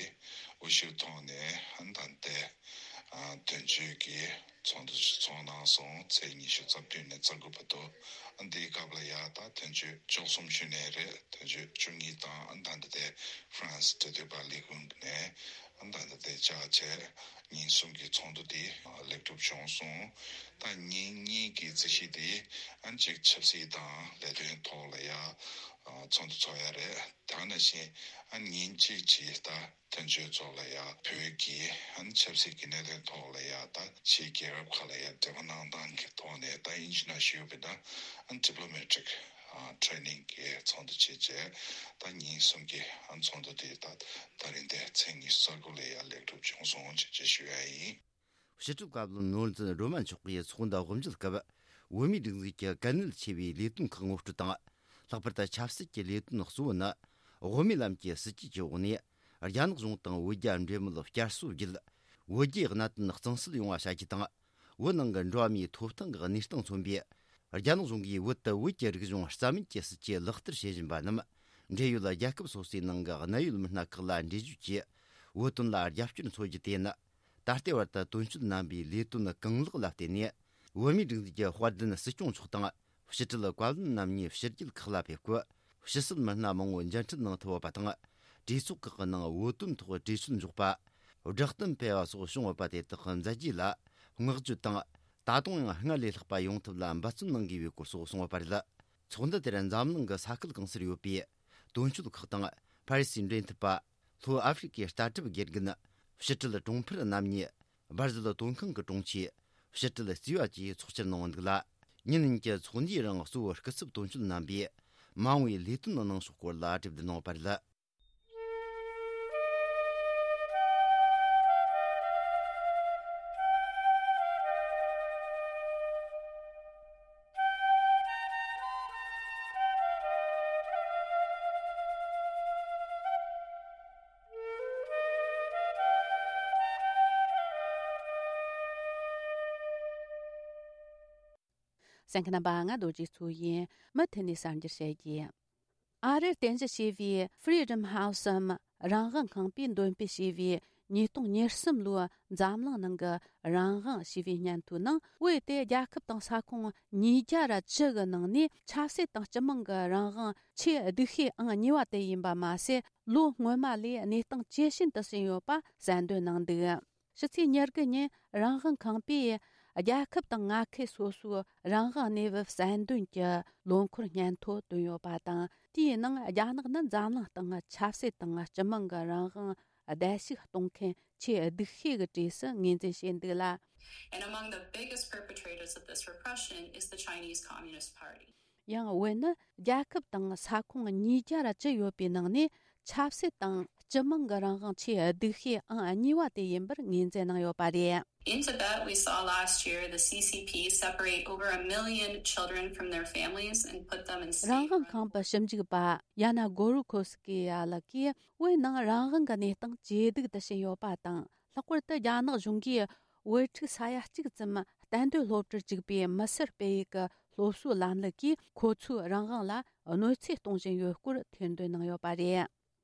དབུ་བཞུགས་ཐོག་ནས་ཨ་ནི་ད་ལྟའི་ཨ་དོན་གཅོད་ཀྱི་ཚོགས་འདུ་ཚོགས་གནང་སོང་། ཚེས་ཉི་ཤུ་རྩ་བདུན་ནས་རྩ་དགུ་བར་དུ། ཨ་ནི་འདིའི་སྐབས་ལ་ཡ་ད་དོན་གཅོད་བཅུ་གསུམ་ཞུས་ནའི་རེད། དོན་གཅོད་བཅུ་གཉིས་དང་ཨ་ནི་ད་ལྟ་དེ་ཧྥ་རན་སི་འབྲེལ་མཐུད་པ་ལས་ཁུངས་ནས་ཨ་ནི་ད་ལྟ་དེ་བཅར་བྱས་ཉིན་གསུམ་གྱི་ཚོགས་འདུ་དེ་ལེགས་གྲུབ་བྱུང་སོང་། ད་ཉིན་གཉིས་ཀྱི་རྩིས་གཞི་དེ་ཨ་ནི་གཅིག་ཆབ་སྲིད་དང་ལས་དོན་ཐོག་ལ་ཡ་ཚོགས་འདུ་ཚོགས་ཡ་རེད། དེ་ནང་བཞིན་ཨ་ཉིན་གཅིག་ཅིག་ད་དོན་གཅོད་ཚོ་ལ་ཡ་བོད་ཀྱི་ཨ་ཆབ་སྲིད་ཀྱི་གནད་དོན་ཐོག་ལ་ཡ་ད་ཕྱིའི་རྒྱལ་ཁབ་ཁག་ལ་ཡ་འབྲེལ་བ་གནང་སྟངས་ཀྱི་ཐོག་ནས་ད་ཨིན་ཇི་ནང་ཞུས་པ་ན་ཨ་diplomatic training་གི་ཚོགས་འདུ་བྱས་རྗེས་ད་ཉིན་གསུམ་གྱི་ཨ་ཚོགས་འདུ་དེ་ད་ད་རིང་དེ་ཚེས་ཉི་ཤུ་རྩ་དགུ་ལ་ཡ་ལེགས་གྲུབ་བྱུང་སོང་ཞེས་ཞུ་ཡ་ཡིན། ཕྱི་དྲིལ་བཀའ་བློན་ནོར་འཛིན་སྒྲོལ་མ་མཆོག་གིས་ཚོགས་འདུ་དབུ་འབྱེད་སྐབས། བོད་མིའི་སྒྲིག་འཛུགས་ཀྱི་གལ་གནད་ཆེ་བའི་ལས་དོན་ཁག་ངོ་སྤྲོད་དང་། ལྷག་པར་དུ་ཆབ་སྲིད་ཀྱི་ལས་དོན་གཙོ་བོ་ནི། དབུ་མའི་ལམ་གྱི་སྲིད་ཇུས་ཀྱི་འོག་ནས། རྒྱ་ནག་གཞུང་དང་བོད་རྒྱ་འབྲེལ་མོལ་བསྐྱར་གསོ་བརྒྱུད། བོད་རྒྱའི་གནད་དོན་གཙང་སེལ་ཡོང་བ་བྱ་རྒྱུ་དང་། བོད་ནང་གི་འགྲོ་བ་མིའི་ཐོབ་ཐང་གི་གནས་སྟངས་མཚོན་པའི། རྒྱ་ནག་གཞུང་གིས་བོད་དུ་བོད་ཀྱི་རིག་གཞུང་རྩ་མེད་ཀྱི་སྲིད་ཇུས་ལག་བསྟར་བྱེད་བཞིན་པ་རྣམས། འབྲེལ་ཡོད་རྒྱལ་ཁབ་སོ་སོའི་ནང་གི་གནད་ཡོད་མི་སྣ་ཁག་ལ་འགྲེལ་བརྗོད་ཀྱིས། བོད་དོན་ལ་རྒྱབ་སྐྱོར་འཚོལ་རྒྱུ་དེ་ནི། ད་ལྟའི་བར་དུ་དོན་གཅོད་རྣམ་པའི་ལས་དོན་གང་ལེགས་ལ་བརྟེན་ནས། བོད་མིའི་སྒྲིག་འཛུགས་ཀྱི་དཔལ་ལྡན་སྲིད་སྐྱོང་མཆོག་དང་། ཕྱི་དྲིལ་བཀའ་བློན་རྣམ་གཉིས་ཕྱི་རྒྱལ་ཁག་ལ་ཕེབས་སྐབས། ཕྱི་སྲིད་མི་སྣ་མང་བོ་མཇལ་འཕྲད་གནང་ཐུབ་པ་དང་། གྲོས་ཚོགས་ཁག་གི་ནང་བོད་དོན་ཐོག་གྲོས་ཆོད་འཇོག་པ། བསྒྲགས་གཏམ་སྤེལ་བ་སོགས་བྱུང་ཡོད་པ་དེ་དག་མཛད་རྗེས་ལ་བསྔགས་བརྗོད་དང་། ད་དུང་ཡང་སྔར་ལས་ལྷག་པ་ཡོང་ཐབས་ལ་འབད་བརྩོན་གནང་དགོས་པའི་སྐོར་སོགས་གསུངས་ཡོད་པ་རེད། ཚོགས་འདུ་དེར་འཛམ་གླིང་གི་ས་ཁུལ་གང་སར་ཡོད་པའི་དོན་གཅོད་ཁག་དང་། ཕ་རི་སིའི་འབྲེལ་མཐུད་པ། ལྷོ་ཨ་ཧྥེ་རི་ཀའི་ལྟ་གྲུབ་དགེ་རྒན། ཕྱི་དྲིལ་གྲོང་འཕེལ་རྣམ་གཉིས། སྦར་ཟིལ་དོན་ཁང་གི་དྲུང་ཆེ། ཕྱི་དྲིལ་རྩིས་པ་བཅས་ཚོགས་བཅར་གནང་འདུག་ལ། ཉིན་གཉིས་ཀྱི་ཚོགས་འདུའི་རིང་གཙོ་བོ་སྐུ་ཚབ་དོན་གཅོད་རྣམ་པས་མ་འོངས་པའི་ལས་དོན་གནང་ཕྱོགས་སྐོར་ལ་གྲོས་བསྡུར་གནང་བ་རེད། གསན་མཁན་རྣམ་པ། ང་རྡོ་རྗེ་མཚོ་ཡིན། མུ་མཐུད་ནས་གསར་འགྱུར་བཤད་རྒྱུ། ཨ་རིར་རྟེན་གཞི་བྱས་པའི་Freedom House་འམ་རང་དབང་ཁང་པས་འདོན་སྤེལ་བྱས་པའི་ཉིས་སྟོང་ཉེར་གསུམ་ལོའི་འཛམ་གླིང་ནང་གི་རང་དབང་ཞེས་པའི་སྙན་ཐོའི་ནང་། བོད་དེ་རྒྱལ་ཁབ་དང་ས་ཁོངས་ཉིས་བརྒྱ་ར་བཅུ་གི་ནང་ནས་ཆབ་སྲིད་དང་སྤྱི་དམངས་ཀྱི་རང་དབང་ཆེས་སྡུག་ཤོས་ཨང་གཉིས་པ་དེ་ཡིན་པ་མ་ཟད། ལོ་སྔོན་མ་ལས་གནས་སྟངས་ཇེ་ཞན་དུ་ཕྱིན་ཡོད་པ་གསལ་འདོན་གནང་འདུག། ཕྱི་ཚེས་ཉེར་དགུ་ཉིན་རང་དབང་ཁང་པས་རྒྱལ་ཁབ་དང་མངའ་ཁུལ་སོ་སོའི་རང་དབང་གནས་བབ་གསལ་འདོན་གྱི་ལོ་འཁོར་སྙན་ཐོ་བཏོན་ཡོད་པ་དང་། དེའི་ནང་རྒྱ་ནག་ནི་འཛམ་གླིང་སྟེང་ཆབ་སྲིད་དང་སྤྱི་དམངས་ཀྱི་རང་དབང་བརྡལ་བཤིག་གཏོང་མཁན་ཆེས་སྡུག་ཤོས་ཀྱི་གྲས་སུ་ངོས་འཛིན་བྱས་འདུག་ལ། And among the biggest perpetrators of this repression is the Chinese Communist Party. ཡང་བོད་ནི་རྒྱལ་ཁབ་དང་ས་ཁོངས་ཉིས་བརྒྱ་ར་བཅུ་ཡོད་པའི་ནང་ནས་ཆབ་སྲིད་དང་སྤྱི་དམངས་ཀྱི་རང་དབང་ཆེས་སྡུག་ཤོས་ཨང་གཉིས་པ་དེ་ཡིན་པར་ངོས་འཛིན་གནང་ཡོད་པ་རེད། In Tibet, we saw last year the C C P separate over a million children from their families and put them in state-run རང་དབང་ཁང་པའི་ཞིབ་འཇུག་པ་ཡ་ན་གོ་རུ་ཁོ་སི་ཀི་ཡ་ལགས་ཀྱིས། བོད་ནང་རང་དབང་གི་གནས་སྟངས་ཇེ་སྡུག་ཏུ་ཕྱིན་ཡོད་པ་དང་། ལྷག་པར་དུ་རྒྱ་ནག་གཞུང་གིས་བོད་ཕྲུག་ས་ཡ་གཅིག་ཙམ་གཏན་སྡོད་སློབ་གྲྭར་བཅུག་པའི་མི་སེར་སྤེལ་ཡུལ་གྱི་སློབ་གསོའི་ལམ་ལུགས་ཀྱིས་ཁོ་ཚོའི་རང་དབང་ལ་གནོད་འཚེ་གཏོང་བཞིན་ཡོད་སྐོར་ཐེར་འདོན་གནང་ཡོད་པ་རེད།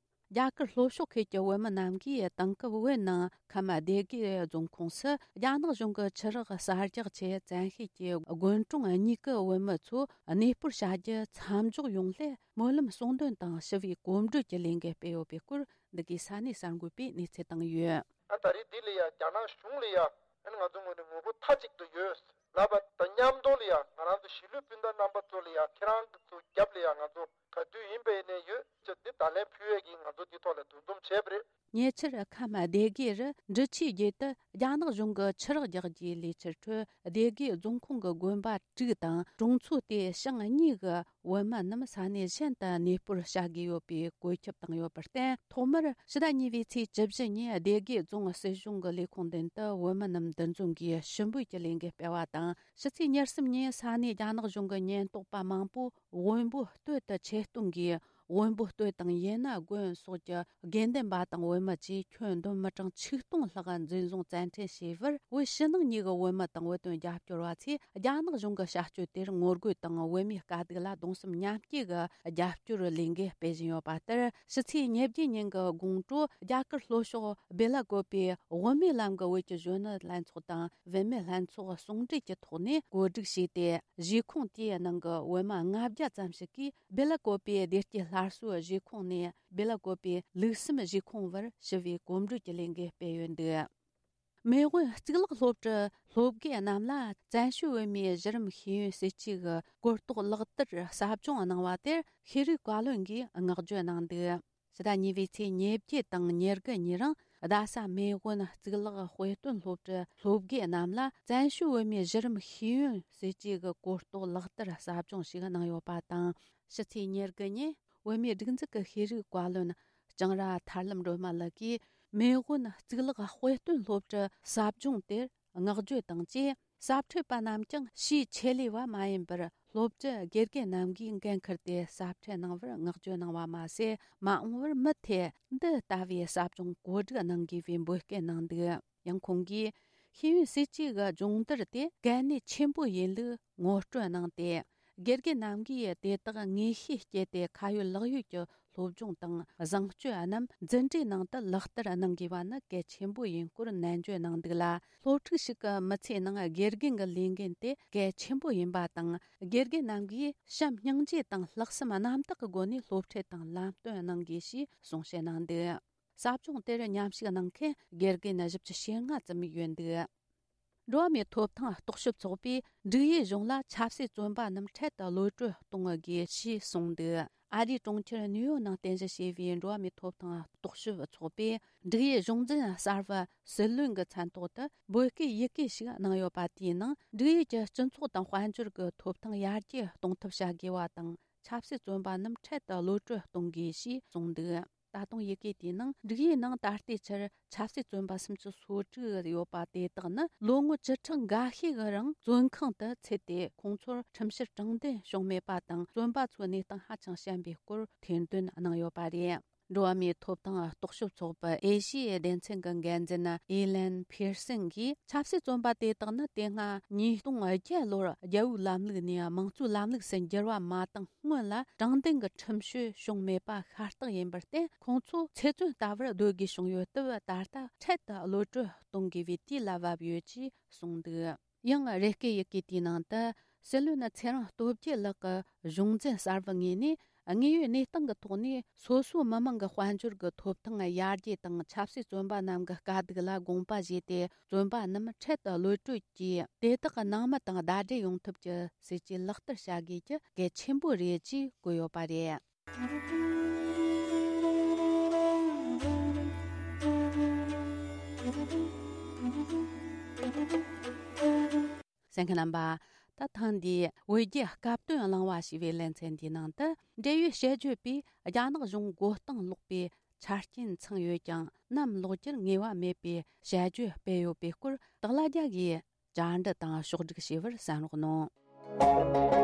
རྒྱ་གར་ལྷོ་ཕྱོགས་ཁུལ་གྱི་བོད་མི་རྣམས་ཀྱིས་དེང་སྐབས་བོད་ནང་ཁམས་སྡེ་དགེ་རྫོང་ཁོངས་སུ་རྒྱ་ནག་གཞུང་གི་ཆུ་རགས་གསར་རྒྱག་ཆེད་བཙན་ཤེད་ཀྱིས་དགོན་གྲོང་གཉིས་ཀྱི་བོད་མི་ཚོ་གནས་སྤོར་བྱ་རྒྱུ་མཚམས་འཇོག་ཡོང་སླད། སྨོན་ལམ་གསུང་འདོན་དང་ཞི་བའི་གོམ་བགྲོད་ཀྱི་ལས་འགུལ་སྤེལ་ཡོད་པའི་སྐོར། འདི་གའི་ས་གནས་གསར་འགོད་པས་གནས་ཚུལ་བཏང་ཡོད། ཨ་ད་རེས་འདི་ལ་ཡ་རྒྱ་ནག་གཞུང་ལ་ཡ་ཨ་ནི་ང་ཚོ་ངོས་ནས་ངོ་རྒོལ་མཐའ་གཅིག་ཏུ་ཡོད་ལབ་པ་དང་མཉམ་དུ་ལ་ཡ་ང་རང་ཚོ་གཞིས་ལུས་སྤུན་ཟླ་རྣམ་པ་ཚོ་ལ་ཡ་ཁྱེད་རང་ཚོ་རྒྱབ་ལ་ཡ་ང་ཚོ་ ག་དུས་ཡིན་པ་ཡིན་ནའི་ཡོད་ཅེས་འདི་ད་ལན་ཕུལ་ཡས་ཀྱིས་ང་ཚོ་འདི་ཐོག་ལ་འདུ་འཛོམས་བྱས་པ་རེད། ཉེ་ཆར་ཁམས་སྡེ་དགེ་རུ་འབྲི་ཆུའི་རྒྱུད་དུ་རྒྱ་ནག་གཞུང་གིས་ཆུ་རགས་རྒྱག་རྒྱུའི་ལས་འཆར་ཁྲོད་སྡེ་དགེ་རྫོང་ཁོངས་ཀྱི་དགོན་པ་དྲུག་དང་གྲོང་ཚོ་དེའི་ཞིང་གཉིས་ཀྱི་བོད་མི་རྣམས་ས་གནས་གཞན་དུ་གནས་སྤོར་བྱ་དགོས་ཡོད་པའི་བཀོད་ཁྱབ་བཏང་ཡོད་པར་བརྟེན། ཐོག་མར་ཕྱི་ཟླ་གཉིས་པའི་ཚེས་བཅུ་བཞི་ཉིན་སྡེ་དགེ་རྫོང་སྲིད་གཞུང་གི་ལས་ཁུངས་མདུན་དུ་བོད་མི་རྣམས་འདུ་འཛོམས་ཀྱིས་ཞུ་འབོད་ཀྱི་ལས་འགུལ་སྤེལ་བ་དང་། ཕྱི་ཚེས་ཉེར་གསུམ་ཉིན་ས་གནས་རྒྱ་ནག་གཞུང་གི་ཉེན་རྟོག་པ་མང་པོས་དབོན་པོ་སྟོད་དུ་ཆེད་གཏོང་གིས། དབོན་པོ་སྟོད་དང་ཡེ་ན་དགོན་སོགས་ཀྱི་དགེ་འདུན་པ་དང་བོད་མི་བཅས་ཁྱོན་བསྡོམས་མི་གྲངས་ཆིག་སྟོང་ལྷག་འཛིན་བཟུང་བཙན་ཁྲིད་བྱས་པར། བོད་ཕྱི་ནང་གཉིས་ཀྱི་བོད་མི་དང་བོད་དོན་རྒྱབ་སྐྱོར་བ་ཚོས་རྒྱ་ནག་གཞུང་གི་བྱ་སྤྱོད་དེར་ངོ་རྒོལ་དང་བོད་མིའི་དཀའ་སྡུག་ལ་གདུང་སེམས་མཉམ་སྐྱེད་ཀྱི་རྒྱབ་སྐྱོར་ལས་འགུལ་སྤེལ་བཞིན་ཡོད་པ་ལྟར། ཕྱི་ཚེས་ཉེར་བརྒྱད་ཉིན་གྱི་དགོང་དྲོ་རྒྱ་གར་ལྷོ་ཕྱོགས་སྦེ་ལ་ཀོ་པའི་དབུ་མའི་ལམ་གྱི་བོད་ཀྱི་གཞོན་ནུ་ལྷན་ཚོགས་དང་བུད་མེད་ལྷན་ཚོགས་ཟུང་འབྲེལ་གྱི་ཐོག་ནས་གོ་སྒྲིག་བྱས་ཏེ། གཞིས་ཁོངས་དེའི་ནང་གི་བོད་མི་ལྔ་བརྒྱ་ཙམ་ཞིག་གིས་སྦེ་ལ་ཀོ་པའི་བདེ་སྐྱིད་སླར་གསོའི་གཞིས་ཁོངས་ནས་སྦེ་ལ་ཀོ་པའི་ལུགས་བསམ་གཞིས་ཁོངས་བར་ཞི་བའི་གོམ་བགྲོད་ཀྱི་ལས་འགུལ་སྤེལ་ཡོད་འདུག་མེས་དབོན་གཙུག་ལག་སློབ་གྲྭའི་སློབ་དགེ་རྣམས་ལ་བཙན་བྱོལ་བོད་མིའི་གཞི་རིམ་ཤེས་ཡོན་སྲིད་ཇུས་ཀྱི་གོ་རྟོགས་ལག་བསྟར་ཟབ་སྦྱོང་གནང་བ་དེར་ཤེས་རིག་བཀའ་བློན་གྱིས་བསྔགས་བརྗོད་གནང་འདུག་ཕྱི་ཟླ་གཉིས་པའི་ཚེས་ཉེར་བརྒྱད་དང་ཉེར་དགུ་ཉིན་རིང་རྡ་ས་མེས་དབོན་གཙུག་ལག་དཔེ་སྟོན་སློབ་གྲྭའི་སློབ་དགེ་རྣམས་ལ་བཙན་བྱོལ་བོད་མིའི་གཞི་རིམ་ཤེས་ཡོན་སྲིད་ཇུས་ཀྱི་གོ་རྟོགས་ལག་བསྟར་ཟབ་སྦྱོང་ཞིག་གནང་ཡོད་པ་དང་། ཕྱི་ཚེས་ཉེར་དགུ་ཉིན་བོད་མིའི་སྒྲིག་འཛུགས་ཀྱི་ཤེས་རིག་བཀའ་བློན་ལྕང་ར་ཐར་ལམ་སྒྲོལ་མ་ལགས་ཀྱིས་མེས་དབོན་གཙུག་ལག་དཔེ་སྟོན་སློབ་གྲྭའི་ཟབ་སྦྱོང་དེར་བསྔགས་བརྗོད་དང་བཅས། ཟབ་ཁྲིད་པ་རྣམས་ཀྱང་ཕྱིའི་ཆེད་ལས་བ་མ་ཡིན་པར། སློབ་གྲྭའི་དགེ་རྒན་རྣམས་ཀྱིས་འགན་འཁུར་ཏེ་ཟབ་ཁྲིད་གནང་བར་བསྔགས་བརྗོད་གནང་བ་མ་ཟད། མ་འོངས་པར་མུ་མཐུད་འདི་ལྟ་བུའི་ཟབ་སྦྱོང་གོ་སྒྲིག་གནང་དགོས་པའི་འབོད་སྐུལ་གནང་འདུག་ཡང་ཁོང་གིས་ཤེས་ཡོན་སྲིད་ཇུས་ཀྱི་སྦྱོང་བརྡར་དེ་གལ་གནད་ཆེན་པོ་ཡིན་ལུགས་ངོ་སྤྲོད་གནང་སྟེ། དགེ་རྒན་རྣམས་ཀྱིས་དེ་དག་ངེས་ཤེས་བསྐྱེད་དེ་ཁ་ཡོད་ལག་ཡོད་ཀྱི་སློབ་སྦྱོང་དང་བཟང་སྤྱོད་རྣམས་འཛིན་གྲྭའི་ནང་དུ་ལག་བསྟར་གནང་དགོས་པ་ནི་གལ་ཆེན་པོ་ཡིན་སྐོར་ནན་བརྗོད་གནང་འདུག་ལ། སློབ་ཕྲུག་ཞིག་གི་མི་ཚེའི་ནང་དགེ་རྒན་གྱི་ལས་འགན་དེ་གལ་ཆེན་པོ་ཡིན་པ་དང་། དགེ་རྒན་རྣམས་ཀྱིས་བྱམས་སྙིང་རྗེ་དང་ལྷག་བསམ་རྣམ་དག་གི་སྒོ་ནས་སློབ་ཁྲིད་དང་ལམ་སྟོན་གནང་དགོས་ཞེས་གསུང་བཤད་གནང་འདུག་ཟབ་སྦྱོང་དེར་མཉམ་ཞུགས་གནང་མཁན་དགེ་རྒན་བཞི་བཅུ་ཞེ་ལྔ་ཙམ་ཡོད་འདུག་འགྲོ་བ་མིའི་ཐོབ་ཐང་རྟོག་ཞིབ་ཚོགས་པས་འབྲུག་ཡུལ་གཞུང་ལ་ཆབ་སྲིད་བཙོན་པ་རྣམས་འཕྲལ་དུ་གློད་གྲོལ་གཏོང་དགོས་ཞེས་གསུངས་འདུག་ཨ་རིའི་གྲོང་ཁྱེར་ནིའུ་ཡོག་ནང་རྟེན་གཞི་བྱས་པའི་འགྲོ་བ་མིའི་ཐོབ་ཐང་རྟོག་ཞིབ་ཚོགས་པས་འབྲུག་ཡུལ་གཞུང་འཛིན་གསར་པ་སྲིད་བློན་གྱི་མཚན་ཐོག་ཏུ་འབོད་སྐུལ་ཡི་གེ་ཞིག་གནང་ཡོད་པ་དེའི་ནང་། འབྲུག་ཡུལ་གྱི་སྤྱི་ཚོགས་དང་དཔལ་འབྱོར་གྱི་ཐོབ་ཐང་ཡར་རྒྱས་གཏོང་ཐབས་བྱ་དགོས་པ་དང་། ཆབ་སྲིད་བཙོན་པ་རྣམས་འཕྲལ་དུ་གློད་གྲོལ་གཏོང་དགོས་ཞེས་གསུངས་འདུག་ད་དུང་ཡི་གེ་དེའི་ནང་། འབྲུག་ཡུལ་ནང་ད་ལྟའི་ཆར་ཆབ་སྲིད་བཙོན་པ་སུམ་ཅུ་སོ་དྲུག་ཡོད་པ་དེ་དག་ནི་ལོ་ངོ་བཅུ་ཕྲག་འགའ་ཤས་ཀྱི་རིང་བཙོན་ཁང་དུ་ཚུད་དེ། ཁོང་ཚོར་ཁྲིམས་བཤེར་དྲང་བདེན་བྱུང་མེད་པ་དང་། བཙོན་པ་ཚོའི་གནས་སྟངས་ཧ་ཅང་ཞན་པའི་སྐོར་ཐེར་འདོན་གནང་ཡོད་པ་རེད། འགྲོ་བ་མིའི་ཐོབ་ཐང་རྟོག་ཞིབ་ཚོགས་པའི་ཨེ་ཤི་ཡའི་སྡེ་ཚན་གྱི་འགན་འཛིན་ཨི་ལན་ཕིར་སན་གྱིས། ཆབ་སྲིད་བཙོན་པ་དེ་དག་ནི་དེ་སྔ་ཉིས་སྟོང་བརྒྱད་ལོར་རྒྱལ་པོའི་ལམ་ལུགས་ནས་དམངས་གཙོའི་ལམ་ལུགས་སུ་འགྱུར་བ་མ་བཏང་སྔོན་ལ་དྲང་བདེན་གྱི་ཁྲིམས་གཅོད་བྱུང་མེད་པ་ཤ་སྟག་ཡིན་པར་བརྟེན། ཁོང་ཚོ་ཚེ་བཙོན་ལྟ་བུར་སྡོད་དགོས་བྱུང་ཡོད་སྟབས། ད་ལྟ་འཕྲལ་དུ་གློད་གྲོལ་གཏོང་དགོས་པའི་དུས་ལ་བབ་ཡོད་ཅེས་གསུངས་འདུག་ཡང་རེ་སྐུལ་ཡི་གེ་དེའི་ནང་དུ། སྲིད་བློན་ཚེ་རིང་སྟོབས་རྒྱལ་ལགས་ཀྱི་གཞུང་འཛིན་གསར་པའི་ངོས་ནས། དངོས་ཡོད་གནས་སྟངས་ཀྱི་ཐོག་ནས་སོ་སོའི་མི་མང་གི་དཔལ་འབྱོར་གྱི་ཐོབ་ཐང་ཡར་རྒྱས་དང་། ཆབ་སྲིད་བཙོན་པ་རྣམས་ཀྱི་དཀའ་སྡུག་ལ་དགོངས་པ་བཞེས་ཏེ། བཙོན་པ་རྣམས་འཕྲལ་དུ་གློད་གྲོལ་གྱིས། དེ་དག་གི་ནང་མི་དང་ཟླ་སྒྲིལ་ཡོང་ཐབས་ཀྱི་སྲིད་ཇུས་ལག་བསྟར་བྱ་དགོས་ཀྱི་གལ་ཆེན་པོ་རེད་ཅེས་བཀོད་ཡོད་པ་རེད། གསན་མཁན་རྣམ་པ། ད་ཐེངས་འདིའི་བོད་བརྒྱུད་སྐབས་དོན་གླེང་བ་ཞེས་པའི་ལེ་ཚན་འདིའི་ནང་དུ། འབྲེལ་ཡོད་དཔྱད་བརྗོད་པས་རྒྱ་ནག་གཞུང་མགོ་རྟིང་སློག་པའི་ཆ་རྐྱེན་ཚང་ཡོད་ཀྱང་། ནམ་ལོག་རྒྱུར་ངེས་པ་མེད་པའི་དཔྱད་བརྗོད་སྤེལ་ཡོད་པའི་སྐོར། སྟག་ལྷ་རྒྱལ་གྱིས་བཅར་འདྲི་དང་ཕྱོགས་སྒྲིག་བྱས་པར་གསན་རོགས་གནང་།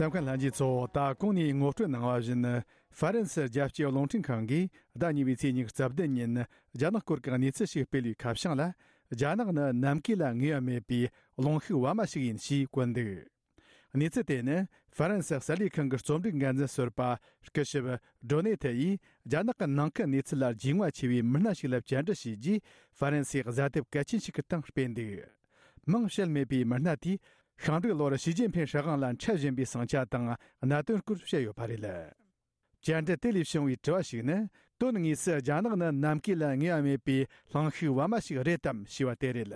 གསན་མཁན་ལྷན་རྒྱས་ཚོ། ད་གོང་ནས་ངོ་སྤྲོད་གནང་བ་བཞིན། ཧྥ་རན་སི་རྒྱལ་སྤྱིའི་རླུང་འཕྲིན་ཁང་གིས་ཟླ་གཉིས་པའི་ཚེས་ཉི་ཤུ་རྩ་བདུན་ཉིན་རྒྱ་ནག་སྐོར་གྱི་གནས་ཚུལ་ཞིག་སྤེལ་བའི་ཁ་བྱང་ལ། རྒྱ་ནག་ནི་ནམ་མཁའི་ལ་ངེས་པ་མེད་པའི་རླུང་ཤུགས་བ་མ་ཞིག་ཡིན་ཞེས་བཀོད་འདུག་གནས་ཚུལ་དེ་ནི་ཧྥ་རན་སི་གསར་ལས་ཁང་གི་རྩོམ་སྒྲིག་འགན་འཛིན་ཟུར་པ་སྐུ་ཞབས་ཌོ་ནེ་ཐེ་ཡིས་རྒྱ་ནག་གི་ནང་ཁུལ་གནས་ཚུལ་ལ་རྒྱུས་མངའ་ཆེ་བའི་མི་སྣ་ཞིག་ལ་བཅར་འདྲི་བྱས་རྗེས། ཧྥ་རན་སིའི་གཟའ་དེབ་གལ་ཆེན་ཞིག་གི་སྟེང་སྤེལ་འདུག་མིང་བཤད་མེད་པའི་མི་སྣ་དེས་ཤིང་འབྲུག་ལོར་ཞི་ཅིན་ཕིང་སྲིད་དབང་ལ་འཕྲད་བཞིན་པའི་ཟིང་ཆ་དང་གནད་དོན་སྐོར་བཤད་ཡོད་པ་རེད། བཅར་འདྲི་དེ་ལས་བྱུང་བའི་དྲི་བ་ཞིག་ནི། དོན་དངོས་སུ་རྒྱ་ནག་ནི་ནམ་མཁའི་ལ་ངེས་པ་མེད་པའི་གླིང་ཤུགས་བར་མ་ཞིག་རེད་དམ་ཞེས་པ་དེ་རེད།